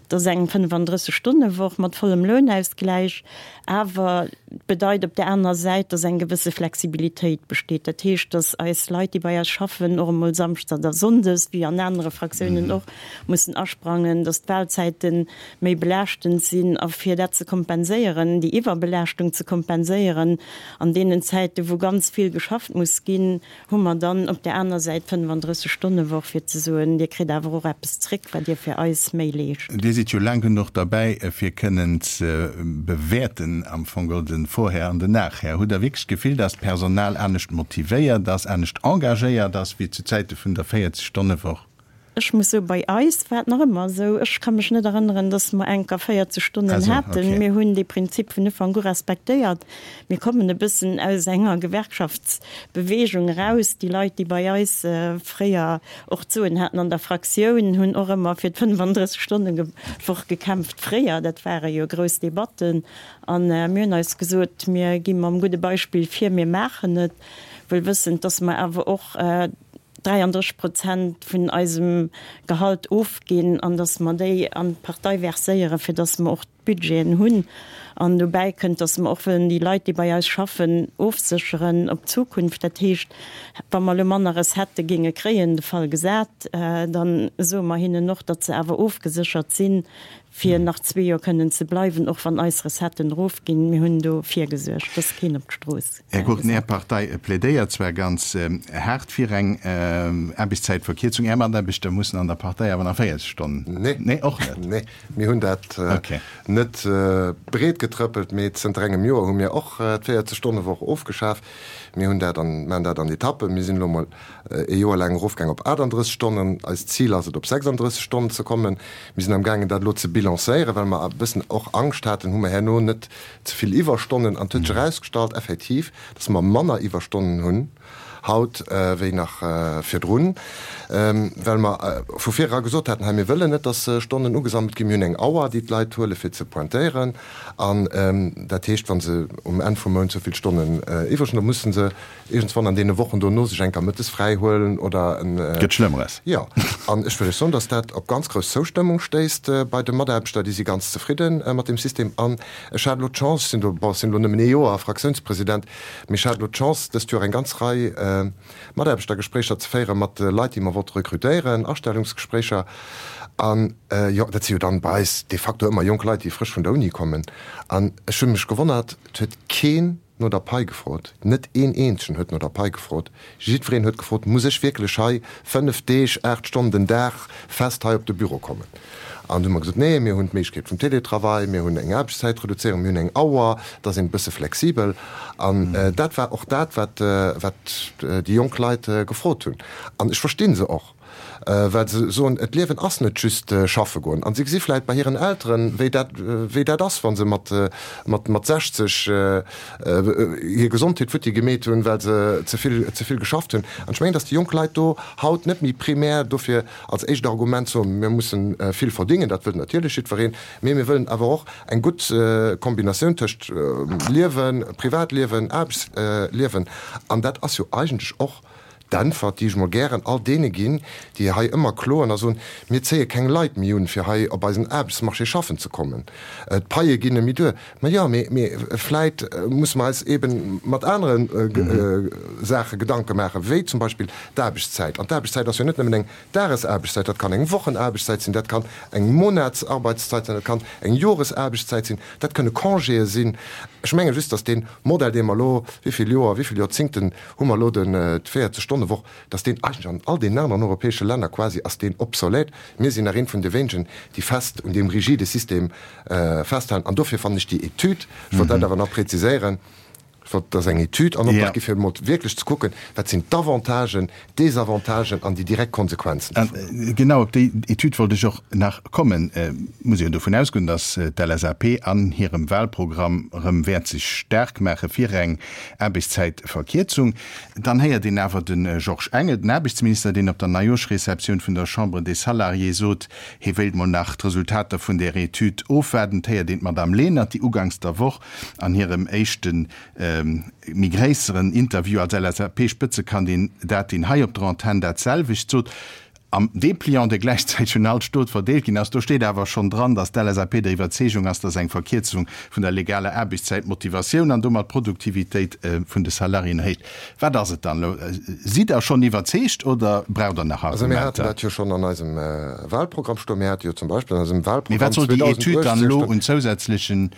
dat ass eng 35 Stonne-Woch mat vollem Lounausgläich. Awer et bedeit op där anerer Säit, dass eng gewësse Flexibilitéit besteet. Dat heescht, dass eis Leit, déi bei eis schaffen, och emol samschdes oder sonndes, wéi an anere Fraktiounen och, mussen asprangen, dass d'Wahlzäite méi belaaschtend sinn. A fir dat ze kompenséieren, déi Iwwerbelaaschtung ze kompenséieren, An deenen Zäiten, wou ganz vill geschafft muss ginn, hu mer dann op där aner Säit d'Fënnefandrësseg Stonne-Woch, fir ze soen, Dir kritt awer och eppes zréck, wat Dir fir eis méi leescht. Dir sidd jo laang genuch derbäi, fir kënnen ze bewäerten am Fong geholl den Vorher an den Nachher. Hutt Der wierklech d'Gefill, dass d'Personal anescht motivéiert ass, anescht engagéiert ass wéi zu Zäite vun der 40 Stonne-Woch? Ech muss soen, bei eis war et nach ëmmer esou, ech ka mech net erënneren, dass mer enker 40 Stonnen haten. Mir hunn dee Prinzip vun Ufank u respektéiert. Mir kommen e bëssen aus enger Gewerkschaftsbewegung eraus. Déi Leit, déi bei eis fréier och d'Soen haten an der Fraktioun, hunn och ëmmer fir d'Fënnefandrësseg-Stonne-Woch gekämpft fréier. Dat ware jo grouss Debatten. A mir hunn eis gesot, mir gi mam gudde Beispill vir, mir maachen et, wuel wëssend, dass mer awer och, 33 Prozent vun eisem Gehalt ofginn an datt mer déi an d'Partei verséieren, fir datt mer och d'Budgeten hunn. An dobäi kënnt, datt mer och wëllen déi Leit, déi bei eis schaffen, ofsécheren op d'Zukunft. Dat heescht, wa mer elo manner Recettë géinge kréien, de Fall gesat, da soe mer hinnen och, datt se awer ofgeséchert sinn, fir nach zwee Joer kënnen ze bleiwen, och wann eis Recetten erofginn. Mir hunn do virgesuergt, dass keen op d'Strooss Här Gurten, Är Partei plädéiert zwar ganz haart fir eng Aarbechtszäitverkierzung, Är Mataarbechter mussen an der Partei awer nach 40 Stonnen. Nee. Nee, och net? Nee, mir hunn dat net breetgetrëppelt, mee zënter engem Joer hu mir och d'Véierzeg-Stonne-Woch ofgeschaf. Mir hunn dat an, maachen dat an Etappen. Mir sinn elo mol e Joer laang erofgaang op 38 Stonnen. Eist Zil ass et, op 36 Stonnen ze kommen. Mir sinn amgaangen, dat elo ze bilancéieren, well mer e bëssen och Angscht haten, hu mer herno net ze vill Iwwerstonnen. An et huet sech erausgestallt effektiv, dass mer manner Iwwerstonnen hunn haut wéi nach virdrun, well mer vu vir era gesot haten, hei mir wëllen net, dass Stonnen ugesammelt ginn. Mir hunn eng Auer, déi d'Leit huele fir ze pointéieren. An dat heescht, wa se um Enn vum Mount esou vill Stonnen iwwreg hunn, da musse se iergendswann an deene Wochen dono sech eng Kéier mëttes fräi huelen oder en. Gëtt Schlëmmeres. Jo. An ech wëll lech soen, dass dat op ganz grouss Zoustëmmung stéisst bei de Mataarbechter. Déi si ganz zefridde mat deem System. An ech hat elo d'Chance, ech sinn do, bon, ech sinn elo nëmmen ee Joer Fraktiounspresident, mee ech hat elo d'Chance, dëst Joer eng ganz Rei Mataarbechtergespréicher ze féiere mat Leit, déi mer wollte rekrutéieren, Astellungsgespréicher. An, jo, dat si jo dann bei eis de facto ëmmer jonk Leit, déi frësch vun der Uni kommen. An ech hu mech gewonnert, et huet keen no der Pai gefrot. Net een eenzegen huet no der Pai gefrot. Jiddwereen huet gefrot, Muss ech wierklech hei fënnef Deeg, aacht Stonnen den Dag fest hei op de Büro kommen? An du hu mer gesot, Nee, mir hunn d'Méiglechkeet vum Télétravail, mir hunn eng Aarbechtszäitreduzéierung, mir hunn eng Auer, da sinn e bësse flexibel. An dat war och dat, wat déi jonk Leit gefrot hunn. An ech versti se och. Well se soen, d'Liewen ass net just schaffe goen. An se gesi vläit bei hiren Elteren, wéi dat, wéi dat ass, wa se mat, mat, mat 60 hir Gesondheet futti gemeet hunn, well se ze vill, ze vill geschafft hunn. An ech mengen, datt déi jonk Leit do haut net méi primär dofir als éischt Argument soen, mir mussen vill verdingen, dat wëllt natierlech jiddwereen, mee mir wëllen awer och eng gutt Kombinatioun tëscht Liewen, Privatliewen, Aarbechtsliewen. An dat ass jo eigentlech och D'Äntwert, déi ech mol gären all deene ginn, déi hei ëmmer kloen a soen, Mir zéie keng Leit méi un, fir hei op eisen Aarbechtsmarché schaffen ze kommen, d'Paie ginn net méi duer. Ma jo, mee, mee vläit musse mer eis eebe mat anere Saache Gedanke maachen, wéi zum Beispill d'Aarbechtszäit. An d'Aarbechtszäit ass jo net nëmmen eng Dagesaarbechtszäit, dat kann eng Wochenaarbechtszäit sinn, dat kann eng Monatsarbeitszeit sinn, dat kann eng Joresaarbechtszäit sinn, dat kënne Congéë sinn. Ech menge just, datt dee Modell, dee mer elo wéi vill Joer, wéi vill Joerzingten hu mer elo den d' 40 Stonne Woch, dass deen eigentlech an all deenen aneren europäesche Länner quasi ass deen obsolète. Mir sinn nach eent vun de wéinegen, déi fest un deem rigide System festhalen. An dofir fannen ech déi Etüd, ech wollt dat awer nach präziséieren, ech wollt, dass eng Etüd an Optrag gi fir emol wierklech ze kucken, wat sinn d'Avantagen, d'Desavantagen an déi direkt Konsequenzen dovun. Genau op déi Etüd wollt ech och nach kommen. Et muss ee jo dovun ausgoen, dass d'LSAP an hirem Wahlprogramm erëm wäert sech staark maache fir eng Aarbechtszäitverkierzung. Dann héiert een awer de Georges Engel, den Aarbechtsminister, deen op der Neijooschreceptioun vun der Chambre des Salariés sot, hie wéilt mol nach d'Resultater vun där Etüd ofwaarden. Et héiert een d'Madame Lenert, déi uganks der Woch an hirem éischte méi gréisseren Interview als LSAP-Spëtzekandidatin hei op der Antenn dat selwecht sot. Am Depliant, dee gläichzäiteg un all Stot verdeelt ginn ass, do steet awer schonn dran, datt d'LSAP der Iwwerzeegung ass, datt eng Verkierzung vun der legaler Aarbechtszäit d'Motivatioun an domat d'Produktivitéit vun de Salariéen erhéicht. Wat ass et dann elo? Sidd Der schonn iwwerzeegt oder braucht Der nach Also mir haten dat jo schonn an eisem Wahlprogramm stoen. Mir hate jo zum Beispill an eisem Wahlprogramm Mee wat soll déi Etüd dann elo un zousätzlechen,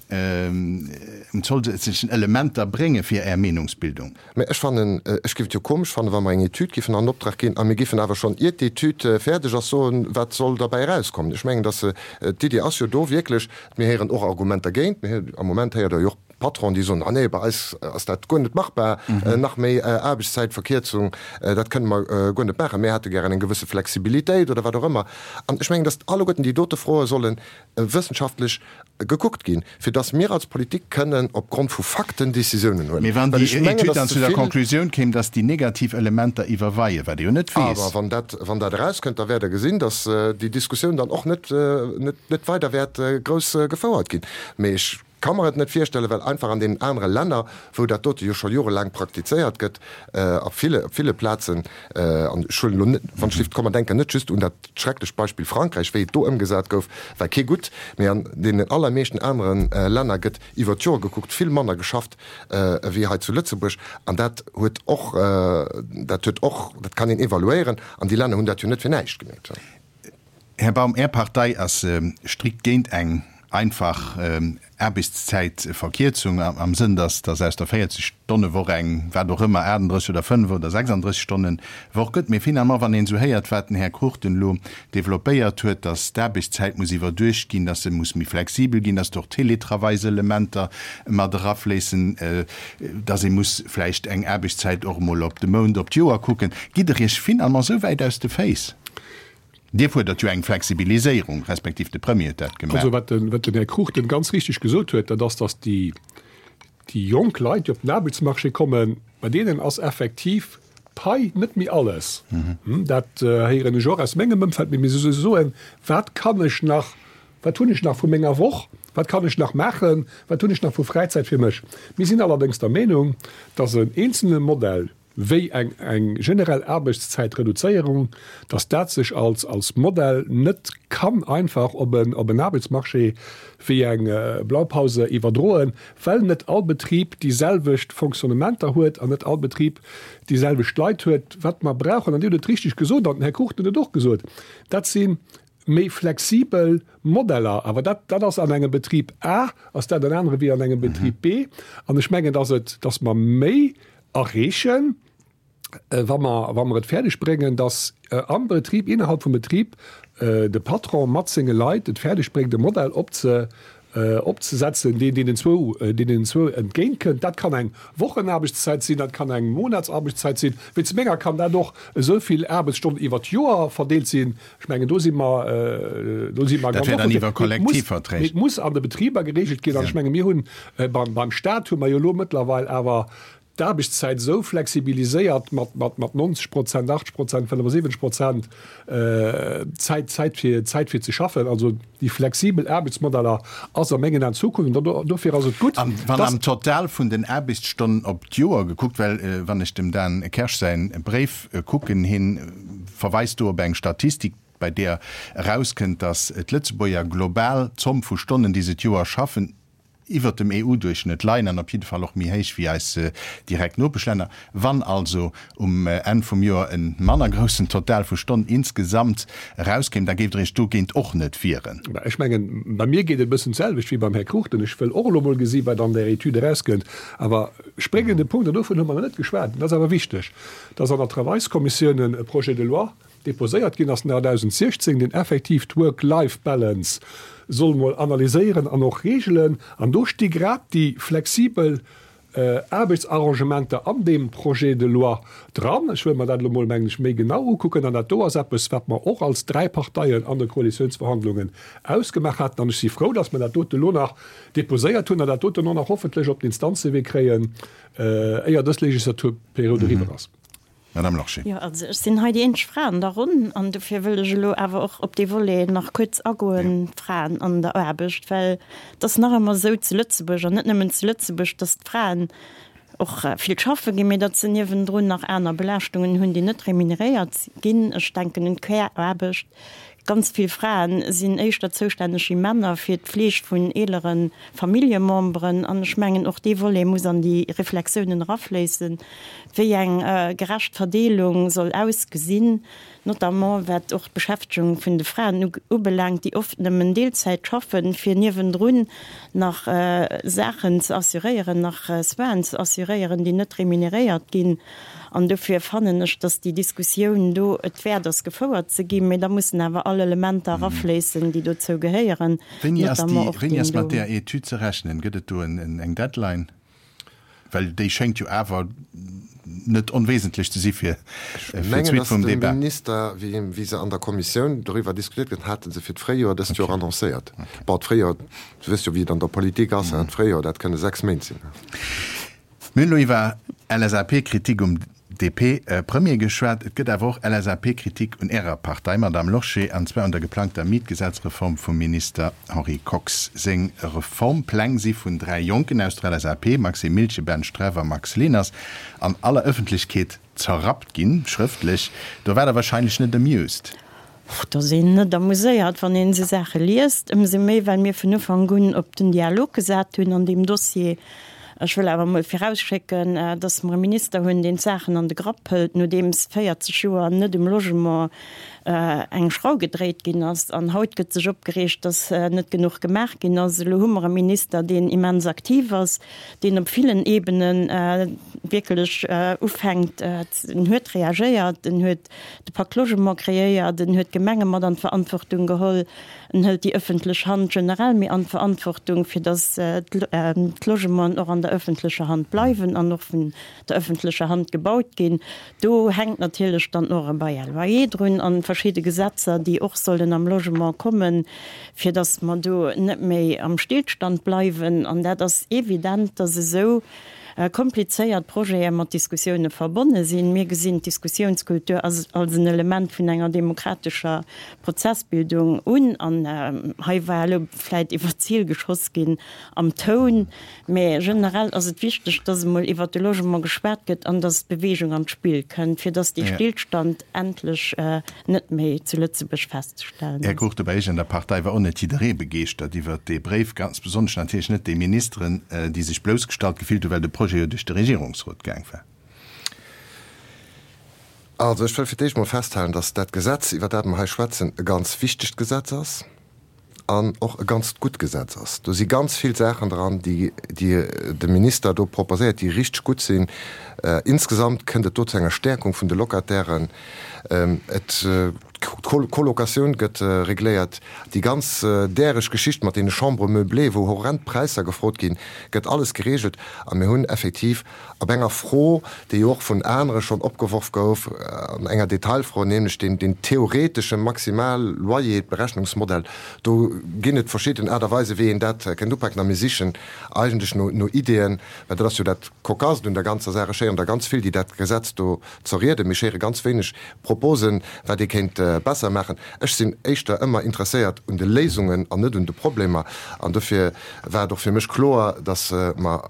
un zousätzlechen Elementer brénge fir Är Meenungsbildung? Mä ech fannen, ech géif et jo komesch fannen, wa mer eng Etüd géifen an Optrag ginn a mir géifen awer schonn, iert d'Etüd fäerdeg ass, soen, wat soll derbäi erauskommen. Ech mengen, dass d'Iddi ass jo do wierklech, mir héieren och Argumenter géint, mir, am Moment héiert Der jo och. Patronen, déi soen, Ah nee, bei eis ass dat guer net machbar, nach méi Aarbechtszäitverkierzung, dat kënne mer guer net maachen, mir hätte gären eng gewësse Flexibilitéit oder wat och ëmmer. An ech mengen, datt alleguerten déi dote Froe solle wëssenschaftlech gekuckt ginn, fir datt mir als Politik kënnen opgrond vu Fakten Décisiounen huelen. Mee wann Well déi ech mengen, Etüd datt dann ze zu der vill. Conclusioun kéim, datt déi negativ Elementer iwwerweien, wat ee jo net weess. Awer wann dat, wann dat erauskënnt, da wäert Der gesinn, datt déi Diskussioun dann och net, net, net weider wäert grouss gefouert ginn. Mee ech ka mer et net virstellen, well einfach an deenen anere Länner, wou dat dote jo scho jorelaang praktizéiert gëtt, a ville, op ville Plazen, an ech huelen elo net, wann ech lift, komm mer denken net just un dat schrecklecht Beispill Frankräich, wéi et do ëmgesat gouf, war kee gutt, mee an deenen allermeeschten anere Länner gëtt iwwer d'Joer gekuckt vill manner geschafft ewéi hei zu Lëtzebuerg. An dat huet och, dat huet och, dat kann een evaluéieren, an déi Länner hunn dat jo net fir näischt gemeet. Här Baum, Är Partei ass strikt géint eng einfach Aarbechtszäitverkierzung am Sënn, datt datt aus der 40 Stonne Woch eng, wat och ëmmer, 38 oder 5 oder 36 Stonnen Woch gëtt. Mee finalement, wann een esou héiert, wat den Här Cruchten elo développéiert huet, datt d'Aarbechtszäit muss iwwerduecht ginn, datt se muss méi flexibel ginn, datt och Télétravailselementer mat erafléissen, datt ee muss vläicht eng Aarbechtszäit och emol op de Mount, op d'Joer kucken, gitt Der Iech finalement esou wäit aus de Féiss? Dir fuerdert jo eng Flexibiliséierung, respektiv de Premier huet dat gemaach. Also wat den, wat den Här Cruchten ganz richtig gesot huet, dat ass, datt déi, déi jonk Leit, déi op den Aarbechtsmarché kommen, bei deenen ass effektiv d'Pai net méi alles. Dat héieren ech och aus mengem Ëmfeld, mee se soen, wat kann ech nach, wat hunn ech nach vu menger Woch, wat kann ech nach maachen, wat hunn ech nach vu Fräizäit fir mech? Mir sinn allerdéngs der Meenung, datt en eenzelne Modell, wéi eng eng generell Aarbechtszäitreduzéierung, dass dat sech als als Modell net kann einfach op en op en Aarbechtsmarché wéi eng Blaupause iwwerdroen, well net all Betrib déi selwecht Fonctionnementer huet an net all Betrib déi selwecht Leit huet. Wat mer brauchen, an Dir hutt et richtig gesot an den Här Cruchten huet et och gesot, dat si méi flexibel Modeller. Awer dat dat ass an engem Betrib A ass dat en anere wéi an engem Betrib B. An ech mengen, dass et dass mer méi erreechen, wa mer, wa mer et fäerdeg bréngen, dass am Betrib, innerhalb vum Betrib, de Patron mat senge Leit et fäerdeg bréngt, e Modell opze, opzesetzen, deen deenen zwou, deenen zwou entgéintkënnt. Dat kann eng Wochenaarbechtszäit sinn, dat kann eng Monatsaarbechtszäit sinn. Wéinst menger kann dat och esou vill Aarbechtsstonnen iwwer d'Joer verdeelt sinn. Ech mengen, do si mer, do si mer ganz offen. Dat wär dann iwwer Kollektivverträg. Mee et muss an de Betriber geregelt ginn. An ech menge mir hunn beim, beim Stat hu mer jo elo mëttlerweil awer d'Aarbechtszäit esou flexibiliséiert mat, mat, mat 90 Prozent, 80 Prozent, 75 Prozent Zäit, Zäit fir, Zäit fir ze schaffen. Also déi flexibel Aarbechtsmodeller ass a mengen Aen d'Zukunft. An dofir ass et gutt, An wann am Total vun den Aarbechtsstonnen op d'Joer gekuckt, well wann ech dem Dan Kersch säin Bréif kucken, hien verweist do op eng Statistik, bei deeër erauskënnt, datt d'Lëtzebuerger global d'Zomm vu Stonnen, déi se d'Joer schaffen, iwwert dem EU-Duerchschnëtt leien an op jidde Fall och méi héich wéi eis direkt Nopeschlänner. Wann also um Enn vum Joer e manner groussen Total vu Stonnen insgesamt erauskéim, da géift Der Iech dogéint och net wieren. Ech mengen, bei mir geet et e bëssen d'selwecht wéi beim Här Cruchten. Ech wëll och elo mol gesi wat an där Etüd erauskënnt. Awer spréngende Punkt, an dovun hu mer nach net geschwat, dat ass awer wichteg, dass an der Travailskommissioun e Projet de loi deposéiert ginn ass 2016, deen effektiv d'Work-Life-Balance soll mol analyséieren an och regelen. An do sti grad déi flexibel Aarbechtsarrangementer an deem Projet de loi dran. Ech wëll mer dat elo mol, mengen ech, méi genau ukucken. An dat do ass eppes, wat mer och als dräi Parteien an de Koalitiounsverhandlungen ausgemaach haten. An ech si frou, dass mer dat dote elo nach deposéiert hunn an dat doten och nach hoffentlech op den Instanzewee kréien, éier dës Legislaturperiod eriwwer ass. Madame Lorsché. Jo, also ech sinn hei déi eenzeg Fra an der Ronn an dofir wëll ech elo awer och op dee Volet nach kuerz agoen, d'Fraen an der Aarbecht, well et ass nach ëmmer esou zu Lëtzebuerg, an net nëmmen zu Lëtzebuerg, dass d'Fraen och vill schaffe ginn, mee datt se niewendrun nach aner Belaaschtungen hunn, déi net remuneréiert ginn. Ech denken un d'Care-Aarbecht. Ganz vill Fraen sinn éischter zoustänneg wéi Männer fir d'Fleeg vun eelere Familljememberen. An ech mengen, och dee Volet muss an déi Reflexiounen erafléissen, wéi eng gerecht Verdeelung soll ausgesinn, notamment wat och d'Beschäftegung vun de Fraen ubelaangt, déi oft nëmmen Deelzäit schaffen, fir niewendrun nach Saachen ze assuréieren, nach Soinen ze assuréieren, déi net remuneréiert ginn. An dofir fannen ech, dass déi Diskussioun do et wäert ass, gefouert ze ginn. Mee da mussen awer all Elementer erafléissen, déi dozou gehéieren, Wéini ass déi, wéini ass mat där Etüd ze rechnen? Gëtt et do eng Deadline? Well déi schéngt jo awer net onwesentlech ze si fir d'Suite vum Debat. Ech mengen, datt de Minister, wéi se an der Kommissioun doriwwer diskutiert gëtt, hate se fir d'Fréijoer dëst Joer annoncéiert. Bon, d'Fréijoer, du wëss jo, wéi et an der Politik ass, d'Fréijoer, dat kënne 6 Méint sinn. Mir hunn elo iwwer LSAP-Kritik um DP-Premier geschwat. Et gëtt awer och LSAP-Kritik un Ärer Partei, Madamm Lorsché, an zwar un der geplangter Mietgesetzreform vum Minister Henri Kox. Seng Reformpläng si vun 3 Jonken aus der LSAP, Maxime Miltgen, Ben Streff a Max Leners, an aller Ëffentlechkeet zerrappt ginn, schrëftlech. Do waart Der wahrscheinlech net amused. Et ass een net amuséiert, wann een esou Saache liest, ëmsou méi, well mir vun Ufank un op den Dialog gesat hunn an deem Dossier. Ech wëll awer emol virausschécken, dass mer e Minister hunn, deen d'Saachen an de Grapp hëlt, nodeems 40 Joer net um Logement eng Schrau gedréit ginn ass. An haut gëtt sech opgereegt, dass net genuch gemaach ginn ass. Elo hu mer e Minister, deen immens aktiv ass, deen op villen Ebene wierklech ufänkt, en huet reagéiert, en huet de Pacte Logement kreéiert, en huet d'Gemenge mat an d'Verantwortung geholl, en hëlt déi ëffentlech Hand generell méi an d'Verantwortung, fir datt d'Logementen och an der ëffentlecher Hand bleiwen an och vun der ëffentlecher Hand gebaut ginn. Do hänkt natierlech dann och e Bail à loyer drun an verschidde Gesetzer, déi och sollen am Logement kommen, fir datt mer do net méi am Stillstand bleiwen. An dat ass evident, datt esou komplizéiert Projete mat Diskussioune verbonne sinn. Mir gesinn d'Diskussiounskultur als en Element vun enger demokratescher Prozessbildung un. An hei war elo vläit iwwer d'Zil geschoss ginn am Toun, mä generell ass et wichteg, dass emol iwwert de Logement geschwat gëtt an dass Beweegung an d'Spill kënnt, fir dass dee Stillstand endlech net méi zu Lëtzebuerg festzestellen Här ass. Cruchten, bei Iech an der Partei war och net jidderee begeeschtert iwwert dee Bréif, ganz besonnesch natierlech net déi Ministeren, déi sech bloussgestallt gefillt hunn, well de Projet jo duerch de Regierungsrot gaang war. Also ech wëll fir d'éischt mol festhalen, dass dat Gesetz, iwwer dat mer hei schwätzen, e ganz wichtegt Gesetz ass an och e ganzt gutt Gesetz ass. Do si ganz vill Saachen dran, déi de Minister do proposéiert, déi richteg gutt sinn. Insgesamt kënnt et do zu enger Stäerkung vun de Locatairen. Et, d'Colocatioun gëtt regléiert. Déi ganz däreg Geschicht mat deene Chambres meublées, wou horrend Präisser gefrot ginn, gëtt alles geregelt. A mir hunn effektiv Op enger Fro, déi jo och vun anere schonn opgeworf gouf, an enger Detailfro, nämlech deen, deen theoretesche Maximal-Loyer-Berechnungsmodell, do ginn et verschidden Aart a Weisen, wéi een dat kéint upaken. A mir sichen eigentlech no, no Ideeën, well dat ass jo dat Cocasst un der ganzer Saach, ech héieren der ganz vill, déi dat Gesetz do zerrieden, mee ech héiere ganz wéineg Proposen, wat ee kéint besser maachen. Ech sinn éischter ëmmer interesséiert un de Léisungen an net un de Problemer. An dofir war et och fir mech kloer, dass mer,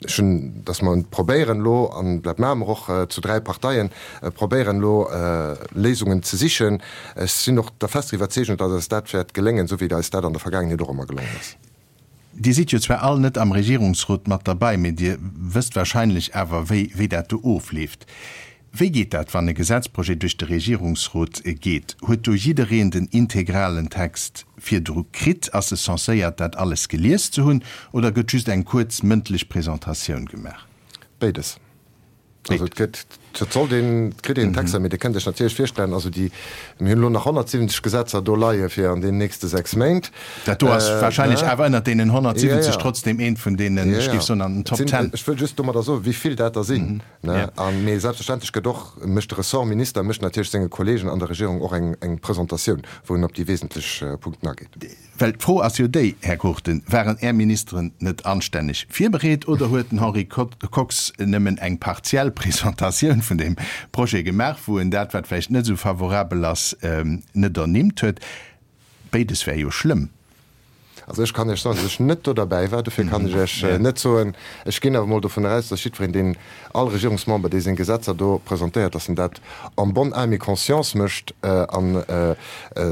ech hunn, dass mer probéieren elo, an dat maache mer och zu 3 Parteien, probéieren elo Léisungen ze sichen. Ech sinn och der fester Iwwerzeegung, dass eis dat wäert geléngen, esou wéi eis dat an der Vergaangenheet och ëmmer gelongen ass. Dir sidd jo zwar all net am Regierungsrot mat derbei, mee Dir wësst wahrscheinlech awer, wéi, wéi dat do ofleeft. Wéi geet dat, wann e Gesetzprojet duerch de Regierungsrot geet? Huet do jiddereen den integralen Text virdru kritt? Ass e censéiert, dat alles gelies ze hunn, oder gëtt just eng kuerz mëndlech Presentatioun gemaach? Béides. Also et gëtt, et sollt een, et kritt een Texter, mee Dir kënnt Iech natierlech virstellen, also déi, mir hunn elo nach 170 Gesetzer do leie fir an deenen nächste 6 Méint. Dat do ass wahrscheinlech awer ënnert deenen 170 trotzdem eent vun deenen, ech géif soen, an den Top Ten. Ech wëll just domadder soen, wéi vill dat der sinn. A mee selbstverständlech gëtt och, mécht de Ressortminister mécht natierlech senge Kollegen an der Regierung och eng Presentatioun, wou en op déi wesentlech Punkten ageet. Well d'Fro ass jo déi, Här Cruchten, Waren Är Ministeren net anstänneg virbereet oder huet den Henri Kox nëmmen eng partiell Presentatioun vun deem Projet gemaach, wou en dat, wat vläicht net esou favorabel ass, net ernimmt huet? Béides wär jo schlëmm. Also ech kann Iech soen, datt ech net do derbäi war, dofir kann ech Iech net soen. Ech ginn awer emol dovun aus, datt jiddwereen, deen, all Regierungsmember, dee seng Gesetzer do presentéiert, datt en dat en bonne âme et conscience mécht. A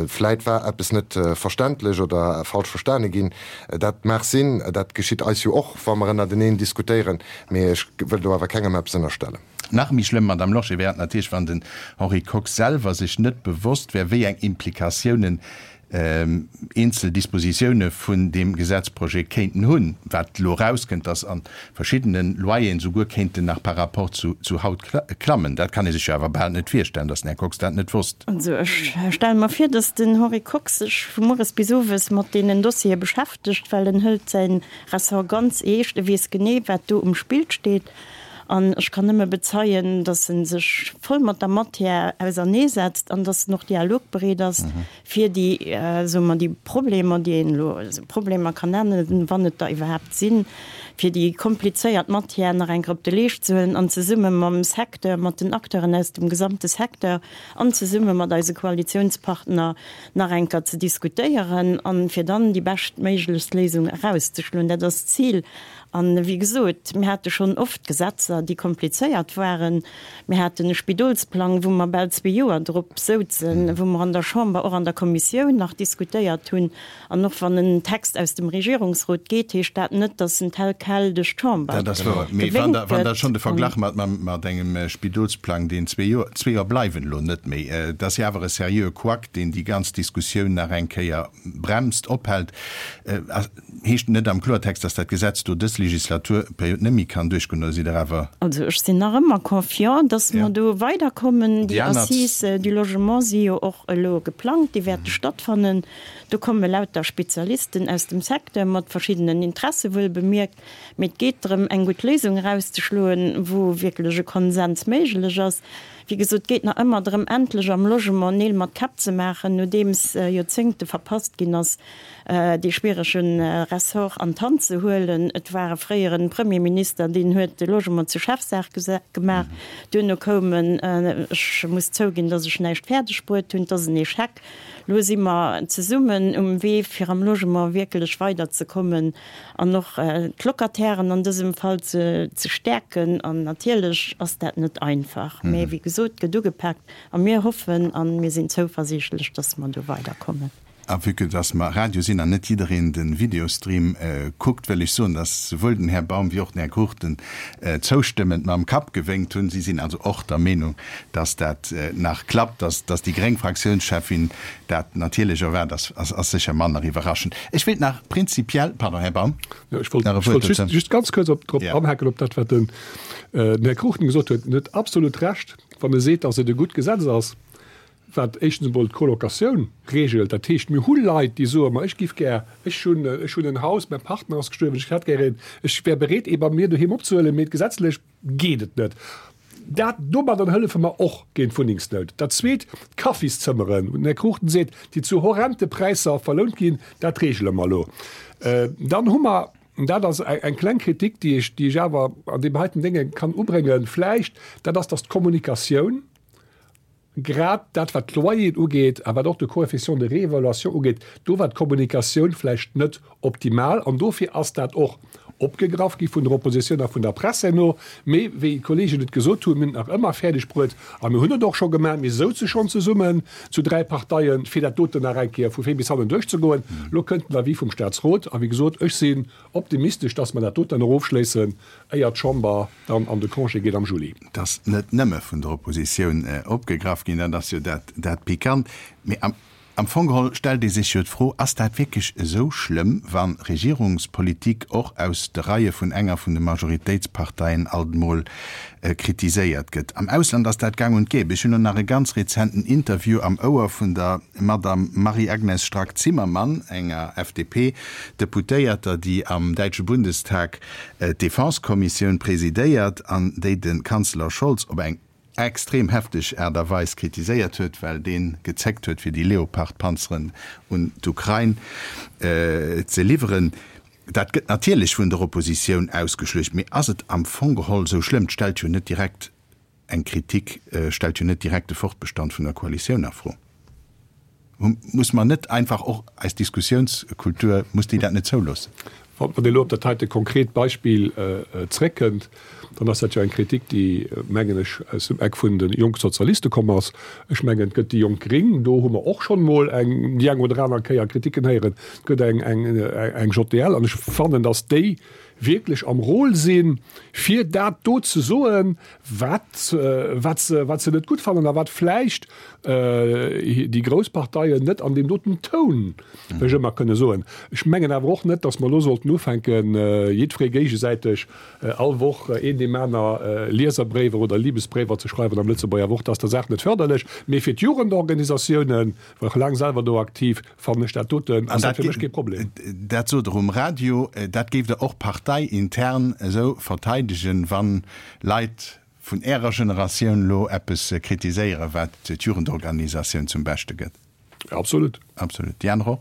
vläit war eppes net verständlech oder falsch verstane ginn. Dat mag sinn. Dat geschitt eis jo och, wa mer ënnerteneen diskutéieren. Mee ech wëll do awer kengem eppes ënnerstellen. Nach méi schlëmm, Madame Lorsché, wär et natierlech, wann den Henri Kox selwer sech net bewosst wär, wéi eng Implikatiounen. Eenzel Dispositioune vun deem Gesetzprojet kéinten hunn, wat elo erauskënnt, dass a verschiddene Loyeren souguer kéinten nach par rapport zu haut klammen. Dat kann ee sech jo awer bal net virstellen, dass den Här Kox dat net wosst. Also ech stelle mer vir, dass den Henri Kox sech vu mueres bis owes mat deenen Dossiere beschäftegt, well en hëlt säi Ressort ganz eescht. E weess genee, wat do um Spill steet. An ech kann nëmme bezeien, dass e sech voll mat der Matière auserneesetzt an dass en och dialogbereet ass, fir déi, soe mer, déi Problemer, déi een elo Problemer kann nennen, wann et der iwwerhaapt sinn, fir déi komplizéiert Matière nach eng Kéier op de Leescht ze huelen an zesumme mam Secteur, mat den Acteuren aus dem gesamte Secteur an zesumme mat eise Koalitionspartner nach eng Kéier ze diskutéieren an fir dann déi beschtméiglechst Léisung erauszeschloen. Dat ass d'Zil. An, wéi gesot, mir hate schonn oft Gesetzer, déi komplizéiert waren. Mir haten e Spidolsplang, wou mer bal zwee Joer drop souzen, wou mer an der Chamber, och an der Kommissioun nach diskutéiert hunn. An och wann en Text aus dem Regierungsrot geet, heescht dat net, datt en tel quel duerch d'Chamber Dat ass wouer. Mee wann Der, wann Der schonn de Verglach mat, mat engem Spidolsplang, deen zwee Joer, zwee Joer bleiwen elo net méi, et ass jo awer e seriöe Couac, deen déi ganz Diskussioun nach eng Kéier bremst, ophält, Heescht net am Kloertext, dass dat Gesetz do dës Legislaturperiod net méi kann duerchgoen, oder sidd Der awer. Also ech sinn nach ëmmer confiant, dass mer do weiderkommen. Déi Assises du logement si jo och elo geplangt, déi wäerte stattfannen. Do komme lauter Spezialisten aus dem Secteur mat verschiddenen Interesse wuel bemierkt. Mee et geet drëm, eng gutt Léisung erauszeschloen, wou wierklech e Konsens méiglech ass. Wéi gesot, et geet nach ëmmer drëm, endlech am Logement Neel mat Käpp ze maachen, nodeems Joerzéngte verpasst ginn ass, dee schwierege Ressort an d'Hand ze huelen. Et war e fréiere Premierminister, deen huet de Logement zur Chefsaach gemaach. Duerno koum en, ech muss zouginn, datt ech näischt fäerdeg bruet hunn, et ass en Echec. Elo si mer zesummen um Wee, fir am Logement wierklech weiderzekommen an och d'Locatairen an dësem Fall ze stäerken. An natierlech ass dat net einfach, mä wéi gesot, et gëtt ugepaakt a mir hoffen a mir sinn zouversiichtlech, datt mer do weiderkommen. A vue que dass mer Radio sinn an net jiddereen de Videostream kuckt, wëll ech soen, dass souwuel den Här Baum wéi och den Här Cruchten zoustëmmend mam Kapp gewénkt hunn. Si sinn also och der Meenung, dass dat nach klappt. Dass dass déi gréng Fraktiounscheffin dat natierlech erwaart, ass ass sécher manner iwwerraschend. Ech wéilt nach prinzipiell, pardon, Här Baum, Jo, ech wollt, nach e ech wollt Wuert dozou. just ganz kuerz op, drop anhaken op dat, wat den, den Här Cruchten gesot huet. En huet absolut Recht, wann e seet, dass et e gutt Gesetz ass. wat éischtens emol d'Colocatioun regelt, dat heescht, mir hu Leit, déi soen, ma ech giff gär, ech hunn, ech hunn en Haus, mäi Partner ass gestuerwen, ech hätt gär een, ech wär bereet, ee bei mir doheem opzehuelen, mee gesetzlech geet et net. Dat, domadder hëllefe mer och géint d'Wunnengsnout. Dat Zweet, d'Kaffiszëmmeren, wou den Här Cruchten seet, déi zu horrente Präisser verlount ginn, dat regele mer elo. Dann hu mer, dat ass eng kleng Kritik, déi ech, déi ech awer an deem heiten Dénge kann ubréngen vläicht, dat ass, dass d'Kommunikatioun, Grad dat, wat d'Loyeren ugeet a wat och de Coefficient de réévaluation ugeet, do war d'Kommunikatioun vläicht net optimal an dofir ass dat och opgegraff gi vun der Oppositioun a vun der Press herno. Mee wéi d'Kollegen et gesot hunn, mir hunn et nach ëmmer fäerdeg bruet a mir hunn et och scho gemaach, mir souze schonn zesummen zu dräi Parteien, fir dat doten nach eng Kéier vu vir bis hannen duerchzegoen. Elo kënnt den Avis vum Statsrot a wéi gesot, ech sinn optimistesch, dass mer dat doten nach ofschléissen, éier d'Chamber dann an de Congé geet am Juli. Et ass net nëmme vun der Oppositioun opgegraff ginn, dat ass jo dat Pikant. Mee am Fong geholl stellt ee sech jo d'Fro, Ass dat wierklech esou schlëmm, wa Regierungspolitik och aus de Reie vun enger vun de Majoritéitsparteien alt emol kritiséiert gëtt? Am Ausland ass dat gang und gäbe. Ech hunn elo nach e ganz rezenten Interview am Ouer vun der Madame Marie-Agnes Strack-Zimmermann, enger FDP-Deputéierter, déi am däitsche Bundestag d'Defense-Kommissioun presidéiert an déi de Kanzler Scholz op eng extrem hefteg Aart a Weis kritiséiert huet, well dee gezéckt huet, fir déi Leopard-Panzeren un d'Ukrain ze liwweren. Dat gëtt natierlech vun der Oppositioun ausgeschluecht, mee ass et am Fong geholl esou schlëmm? Et stellt jo net direkt Eng Kritik stellt jo net direkt de Fortbestand vun der Koalitioun a Fro. Muss mer net einfach och eis Diskussiounskultur, muss déi dat net zouloossen? Wann een elo op dat heite konkret Beispill zréckkënnt, dann ass dat jo eng Kritik, déi, mengen ech, aus dem Eck vun de Jongsozialiste komm ass. Ech mengen, et gëtt déi Jonk Gring, do hu mer och schonn emol eng, déi eng oder aner Kéier Kritiken héieren. Et gëtt eng, eng, eng JDL. An ech fannen, datt déi. wierklech am Rôle sinn, fir dat do ze soen, wat, wat se, wat se net gutt fannen a wat vläicht déi grouss Parteien net an deem doten Toun wéi ëmmer kënne soen. Ech mengen awer och net, datt mer elo sollten ufänken, jiddweree géigesäiteg all Woch een deem aner Lieserbréiwer oder Libesbréiwer ze schreiwen am Lëtzebuerger Wort. Dat ass der Saach net fërderlech. Mee fir d'Jugendorganisatiounen, war och laang selwer do aktiv, fannen ech dat doten, ass dat fir mech kee Problem. Dat sot Der um Radio. Dat géift Der och parteiintern esou verteidegen, wann Leit vun Ärer Generatioun elo eppes kritiséieren, wat d'Jugendorganisatioun zum Beschte gëtt? Absolut. Absolut. Déi aner och?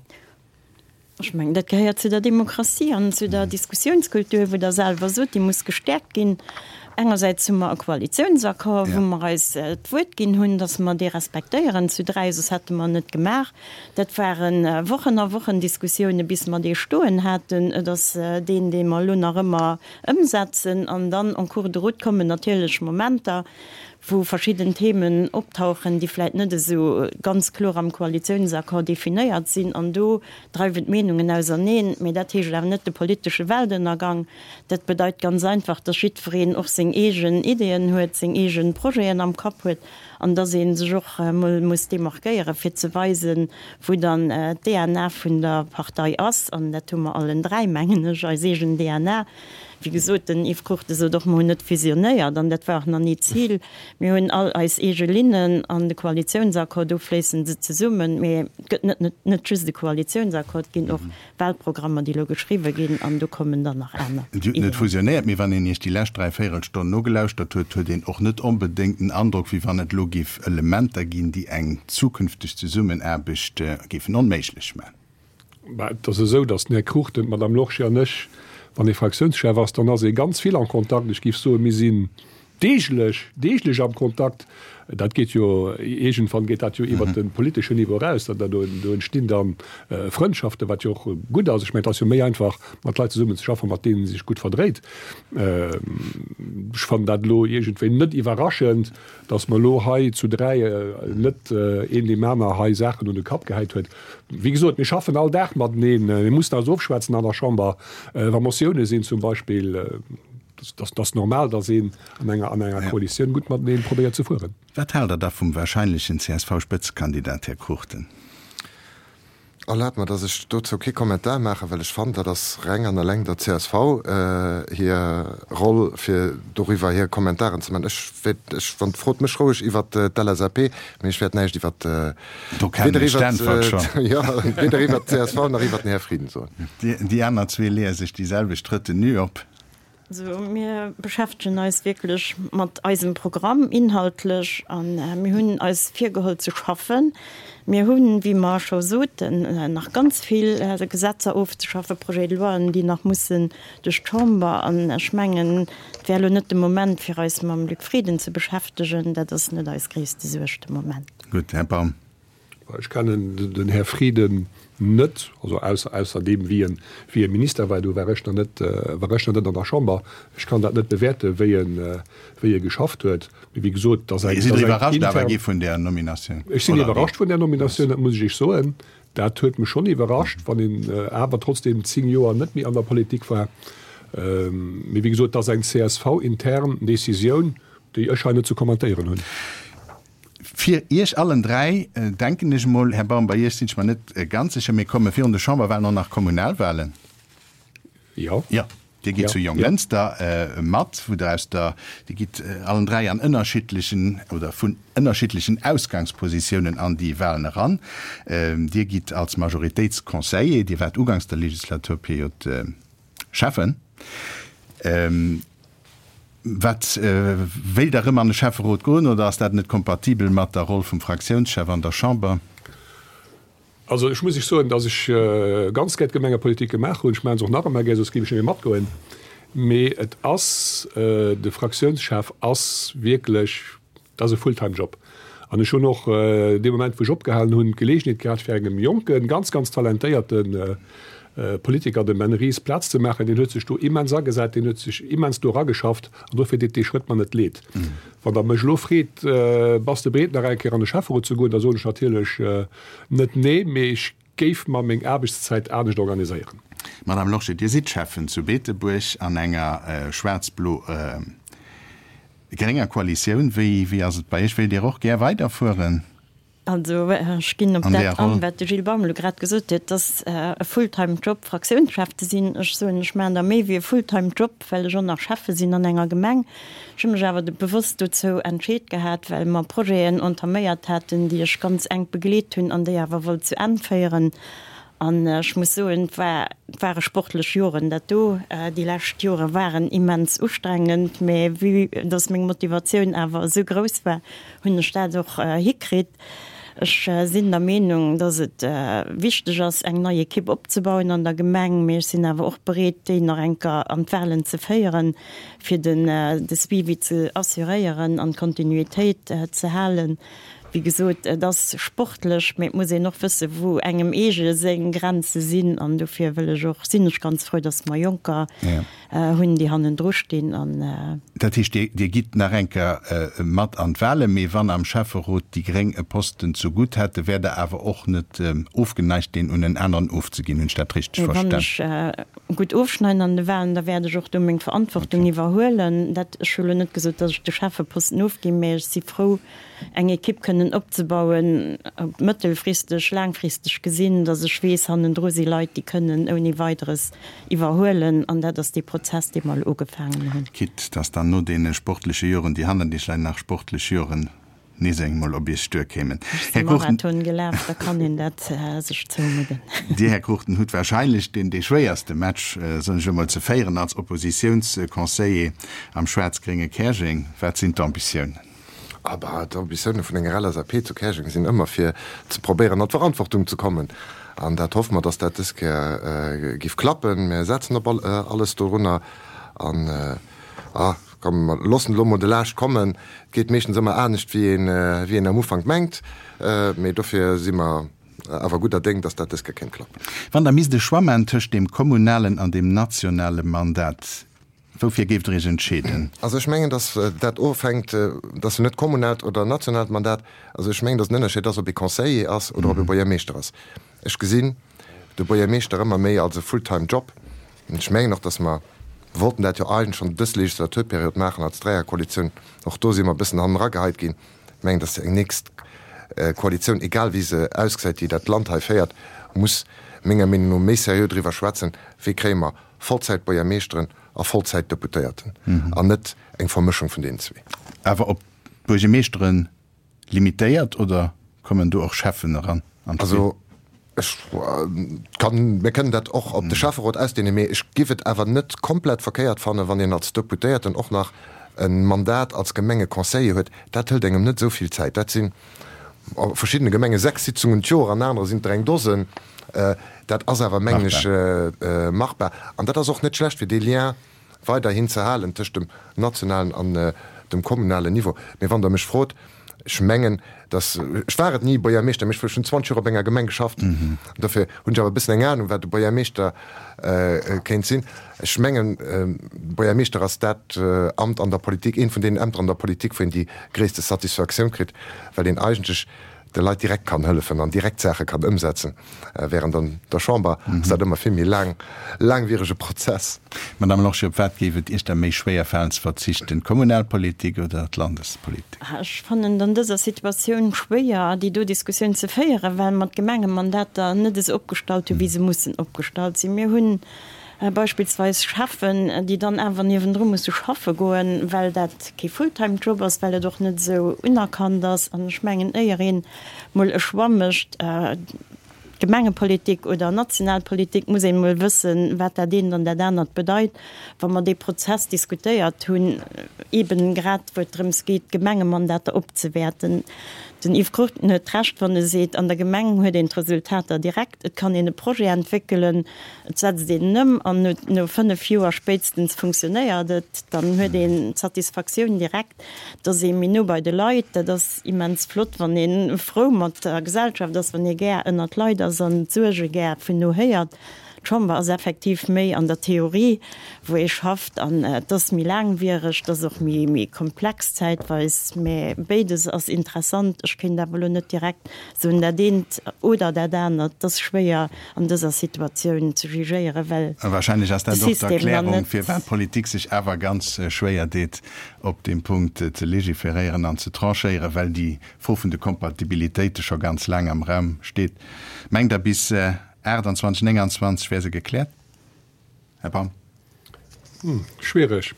Ech mengen, dat gehéiert zu der Demokratie an zu der Diskussionskultur, wou Der selwer sot, déi muss gestäerkt ginn. Engersäits hu mer e Koalitionsaccord, wou mer eis d'Wuert ginn hunn, dass mer dee respektéieren zu dräi, soss hätte mer en net gemaach. Dat ware Wochen a Wochen Diskussiounen, bis mer dee stoen haten. Et ass deen, dee mer elo nach ëmmer ëmsetzen. An dann en cours de route kommen natierlech Momenter, wou verschidden Themen optauchen, déi vläit net esou ganz kloer am Koalitiounsaccord definéiert sinn, an do dreiwen d'Meenungen auserneen. Mee dat heescht awer net de politesche Weltënnergang. Dat bedeit ganz einfach, dass jiddwereen och seng eegen Ideeën huet, seng eege Projeten am Kapp huet an dass ee sech och emol muss demarquéieren, fir ze weisen, wou dann d'DNA vun der Partei ass. An dat hu mer allen dräi, mengen ech, eis eegen DNA. Wéi gesot, den Yves Cruchten sot och, mer hunn net fusionéiert an dat war och nach ni d'Zil. Mir hunn all eis eege Linnen an de Koalitiounsaccord, do fléissen se zesummen. Mee et gëtt net net just e Koalitiounsaccord, et ginn och Wahlprogrammer, déi elo geschriwwe ginn an do kommen dann nach aner Dir hutt net Ideeën. fusionéiert, mee wann een Iech déi lescht Dräivéierelstonn nogelauschtert huet, huet een och net onbedéngt den Androck, wéi wann et elo géif Elementer ginn, déi eng zukünfteg Zesummenaarbecht géifen onméiglech maachen. Mä et ass esou, datt den Här Cruchten, d'Madame Lorsché an ech, wann ee Fraktiounschef ass, dann ass ee ganz vill en Kontakt. Ech géif soen, mir sinn deeglech, deeglech am Kontakt. Dat geet jo, iergendwann geet dat jo iwwert de politeschen Niveau eraus. Da, do, do entstinn da Frëndschaften, wat jo och gutt ass. Ech mengen, et ass jo méi einfach, mat Leit zesummen ze schaffen, mat deenen ee sech gutt verdréit. Ech fannen dat elo iergendwéi net iwwerraschend. Datt mer elo hei zu dräi net een deem aner hei Saachen un de Kapp gehäit huet. Wéi gesot, mir schaffen all Dag mateneen. Mir mussen eis ofschwätzen an der Chamber, wa Motioune sinn zum Beispill. Dat ass normal, datt een an enger an enger Koalitioun gutt matenee probéiert ze fueren. Wat haalt Der da vum wahrscheinlechen CSV-Spëtzekandidat, Här Cruchten? Erlaabt mer, dass ech dozou kee Kommentar maachen, well ech fannen, dat ass reng an eleng der csv hir Roll, fir doriwwer hir Kommentaren ze maachen. Ech wäert, ech, wann, frot mech roueg iwwert d'LSAP, mee ech wäert näischt iwwert, Do kennen weder ech iwwert, d'Äntwert schonn. jo, weder iwwert d'CSV nach iwwert den Här Frieden soen. Déi aner zwee leeë sech déi selwecht Retenue op. Also mir beschäftegen eis wierklech mat eisem Programm inhaltlech a mir hunn eis virgeholl ze schaffen. Mir hunn, wéi mer scho soten, nach ganz vill Gesetzer ofzeschaffen, Projet-de-loien, déi nach mussen duerch d'Chamber. An ech mengen, et wär elo net de Moment, fir eis mam Luc Frieden ze beschäftegen. Dat ass net eis gréisste Suerg de Moment. Gutt, Här Baum. Ech kennen den Här Frieden net, also ausser ausser deem wéi en wéi e Minister war, do war ech nach net war ech nach net an der Chamber. Ech kann dat net bewäerten, wéi en wéi e geschafft huet. Mee wéi gesot, dass eng Sidd Der iwwerrascht awer gi vun där Nominatioun? Ech sinn iwwerrascht vun där Nominatioun, dat muss ech Iech soen. Dat huet mech schonn iwwerrascht, wann een awer trotzdeem 10 Joer net méi an der Politik war. Mee wéi gesot, dat ass eng CSV-intern Decisioun, déi ech hei net ze kommentéieren hunn. Fir Iech allen dräi, denken ech emol, Här Baum, bei Iech sinn ech mer net ganz sécher, mee komme virun de Chamberwahlen och nach Kommunalwahlen? Jo. Jo, Dir gitt zu Jonglënster mat, wou Der aus der, Dir gitt allen dräi an ënnerschiddlechen oder vun ënnerschiddlechen Ausgangspositiounen an déi Wahlen eran. Dir gitt als Majoritéitsconseiller, Dir waart uganks der Legislaturperiod Schäffen. Wat, wéilt Der erëm an de Schäfferot goen oder ass dat net kompatibel mat der Roll vum Fraktiounschef an der Chamber? Also ech muss Iech soen, datt ech ganz gär d'Gemengepolitik gemaach hunn. Ech maache se och nach ëmmer gär, soss géif ech net méi matgoen. Mee et ass, de Fraktiounschef ass wierklech, Dat ass e Fulltime Job. An ech hunn och dee Moment, wou ech opgehalen hunn, d'Geleegenheet gehat, fir engem jonken, ganz, ganz talentéierte Politiker, dem Ben Ries, Plaz ze maachen. Deen huet sech do immens agesat, deen huet sech immens do erageschafft. An dofir deet dee Schrëtt mer net leed. Wann Der mech elo freet, Bass de bereet, nach eng Kéier an de Schäfferot ze goen, da soen ech natierlech net nee, mee ech géif mer meng Aarbechtszäit anescht organiséieren. Madame Lorsché, Dir sidd Schäffen zu Beetebuerg an enger schwaarz-blo-grénger Koalitioun. Wéi ass et bei Iech? Wéilt Dir och gär weiderfueren? Also ech ginn op dat an, wat de Gilles Baum elo grad gesot huet, dass e Fulltime-Job Fraktiounschef ze sinn. Ech soen, ech maachen der méi wéi e Fulltime-Job, well ech och nach Schäffe sinn an enger Gemeng. Ech hu mech awer bewosst dozou entscheet gehat, well mer Projeten entaméiert haten, déi ech ganz enk begleet hunn an déi awer wollt zu Enn féieren. An ech muss soen, et war, et ware sportlech Joren dat do. Déi lescht Jore waren immens ustrengend, mä vue dass meng Motivatioun awer esou grouss war, hunn ech dat och hikritt. Ech sinn der Meenung, dass et wichteg ass, eng nei Ekipp opzebauen an der Gemeng, mee ech sinn awer och bereet, déi nach eng Kéier an d'Wahlen ze féieren, fir den de Suivi ze assuréieren an d'Kontinuitéit ze halen. Wéi gesot, et ass sportlech, mee et muss een och wëssen, wou engem eege seng Grenze sinn. An dofir wëll ech och, sinn ech ganz frou, dass mer Jonker hunn, déi hannendru stinn an. Dat heescht, Dir gitt nach eng Kéier mat an d'Wahlen, mee wann am Schäfferot déi Gréng e Posten zu gutt hätten, wäert Der awer och net ofgeneigt, deen un en aneren ofzeginn. Hunn ech dat richteg Wann verstan? ech gutt ofschneiden an de Wahlen, da wäert ech och do meng Verantwortung iwwerhuelen. Dat, ech hu lo net gesot, datt ech de Schäffeposten ofginn, mä ech si frou, eng Ekipp kënnen opzebauen, mëttelfristeg, laangfristeg gesinn, datt ech weess, hannendru si Leit, déi kënnen ouni Weideres iwwerhuelen. An dat ass dee Prozess, dee mer elo ugefaangen hunn. Quitte dass dann no deene sportleche Joren, déi hannert Iech leien, nach sportlech Joren nees engmol op Iech duerkéimen. Ech si Marathon gelaf, da kann een dat sech zoumudden. Dir, Här Cruchten, hutt wahrscheinlech deen dee schwéierste Match, soen ech emol, ze féieren als Oppositiounsconseiller am schwaarz-grénge Käerjeng. Wat sinn d'Ambitiounen? Ah bah, d'Ambitioune vun enger LSAP zu Käerjeng sinn ëmmer fir ze probéieren an d'Verantwortung ze kommen. An dat hoffe mer, dass dat dës Kéier giff klappen. Mir setzen op alles dorunner an, ah, komm, mer loossen elo mol de Laascht kommen. Et geet meeschtens ëmmer anescht wéi een, wéi een am Ufank mengt, mee dofir si mer awer gudder Déng, dass dat dës Kéier kéint klappen. Wann Der misst e Choix maachen tëscht deem kommunalen an deem nationale Mandat, Woufir géift Der Iech entscheeden? Also ech mengen, datt dat ofhänkt, dat ass jo net kommunaalt oder nationaalt Mandat, also ech mengen, datt en Ënnerscheed ass, ob ee Conseiller ass oder ob ee Buergermeeschter ass. Ech gesinn de Buergermeeschter ëmmer méi als e full-time Job. An ech mengen och, datt mer, wollten dat jo eigentlech schonn dës Legislaturperiod maachen als Dräierkoalitioun, och do si mer e bëssen hanneragehait ginn. Ech mengen, datt eng nächst Koalitioun, egal wéi se ausgesäit, déi dat Land hei féiert, muss menger Meenung no méi seriö driwwer schwätzen, wéi kréie mer Vollzäit-Buergermeeschteren a Vollzäit-Deputéierten an net eng Vermëschung vun deenen zwee. Awer op d'Buergermeeschteren limitéiert oder kommen do och Schäffen eran an d'Spill? Also ech kann, mir kënnen dat och op de Schäfferot ausdehnen, mee ech giff et awer net komplett verkéiert fannen, wann een als Deputéierten och nach e Mandat als Gemengeconseiller huet. Dat hëlt engem net esou vill Zäit. Dat sinn a verschiddene Gemenge 6 Sitzungen d'Joer, an anere sinn et der eng Dosen. Dat ass awer, mengen ech, machbar. An dat ass och net schlecht, fir dee Lien weiderhin ze halen tëscht dem nationalen an dem kommunalen Niveau. Mee wann Der mech frot, ech mengen, dass, ech war et ni Buergermeeschter, mee ech hunn 20 Joer op enger Gemeng geschafft, dofir hunn ech awer e bëssen eng Anung, wat e Buergermeeschter kéint sinn. Ech mengen, Buergermeeschter ass dat Amt an der Politik, eent vun deenen Ämter an der Politik, wou een déi gréisste Satisfaktioun kritt, well een eigentlech de Leit direkt kann hëllefen an direkt Saache kann ëmsetzen, während an der Chamber ass dat ëmmer vill méi laang, laangwierege Prozess. Madame Lorsché, op wat géif et Iech da méi schwéier falen ze verzichten, d'Kommunalpolitik oder d'Landespolitik? Ech fannen et an dëser Situatioun schwéier, déi do Diskussioun ze féieren, well mer d'Gemengemandater net esou opgestallt hunn, wéi se mussen opgestallt sinn. Mir hunn beispillsweis Cheffen, déi dann awer niewendru musse schaffe goen, well dat kee Fulltime-Job ass, well et och net esou unerkannt ass. An ech mengen, éier een mol e Choix mécht, Gemengepolitik oder national Politik, muss een mol wëssen, wat dat eent an dat anert bedeit. Wa mer dee Prozess diskutéiert hunn, eeben grad wou et drëms geet, d'Gemengemandater opzewäerten, Den Yves Cruchten huet Recht, wann e seet, an der Gemeng huet een d'Resultater direkt, et kann een e Projet entwéckelen, et setzt een en ëm an no 5 Joer spéitstens funktionéiert et. Dann huet een d'Satisfaktioun direkt, et ass ee méi no bei de Leit. Dat ass immens flott, wann ee frou mat der Gesellschaft ass, wann ee gär ënnert Leit ass an d'Suerge gär vun no héiert. D'Chamber ass effektiv méi an der Theorie, wou ee schafft, an et ass méi laangwiereg, et ass och méi, méi komplex zäitweis, mä béides ass interessant. Ech kéint awer elo net direkt soen, dat eent oder dat anert. Et ass schwéier an dëser Situatioun ze jugéieren, well A wahrscheinlech ass dat och d'Erklärung, firwat d'Politik sech awer ganz schwéier deet, op deem Punkt ze legiferéieren an ze tranchéieren, well déi Fro vun de Kompatibilitéite scho ganz laang am Raum steet. Mengt Der, bis 28, 29 wär se gekläert, Här Baum? Schwiereg.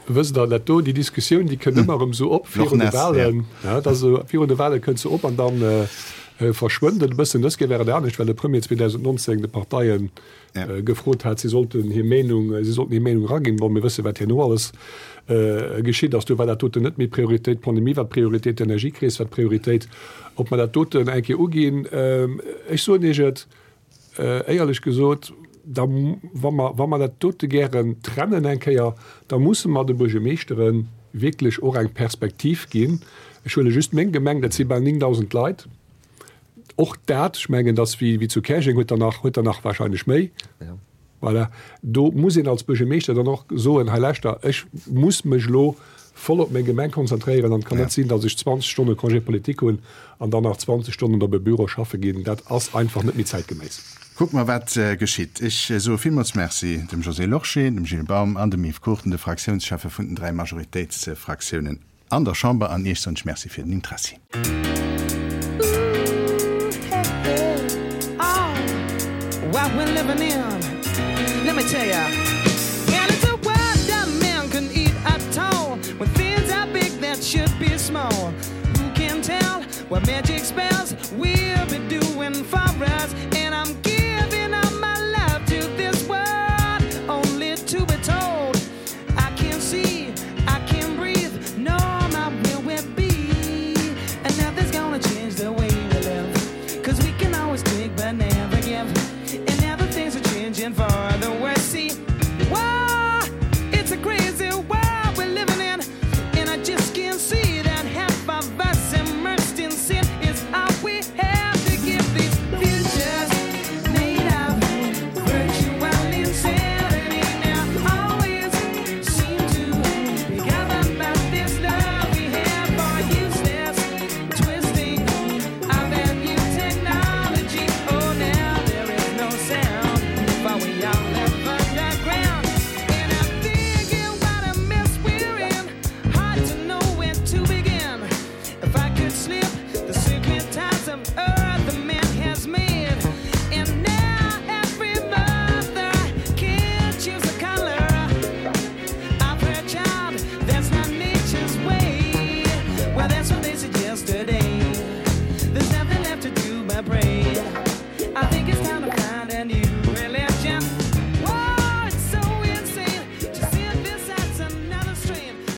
Wësst Der, dat do, déi Diskussioun, déi kënnt ëmmer erëm esou op virun de Wahlen. Ja, dat ass esou, virun de Wahle kënnt se op an dann verschwënnt et e bëssen. Dës Kéier war et anescht, well de Premier 2019 de Parteien gefrot hat, si sollten hir Meenung, si sollten hir Meenung eraginn. Bon, mir wësse wat herno alles geschitt ass. Do war dat doten net méi Prioritéit. D'Pandemie war d'Prioritéit, d'Energiekris war d'Prioritéit. Ob mer dat doten eng Kéier uginn, ech soen Iech et, Éierlech gesot, da, wa mer, wa mer dat dote gären trennen eng Kéier, da musse mer de Buergermeeschtere wierklech och eng Perspektiv ginn. Ech huele just meng Gemeng, dat si bal 9.000 Leit. Och dat, ech mengen, dass wéi, wéi zu Käerjeng huet der nach, huet der nach wahrscheinlech méi. Voilà. Do muss een als Buergermeeschter dann och soen, hei lauschter, ech muss mech elo voll op meng Gemeng konzentréieren an et kann net sinn, datt ech 20 Stonne Congé politique hunn an dann nach 20 Stonnen op e Büro schaffe ginn. Dat ass einfach net méi zäitgeméiss. Kucke mer, wat geschitt. Ech soe villmools Merci dem Josée Lorsché, dem Gilles Baum an dem Yves Cruchten, de Fraktiounscheffe vun den dräi Majoritéitsfraktiounen an der Chamber. An Iech soen ech Merci fir den Interessi.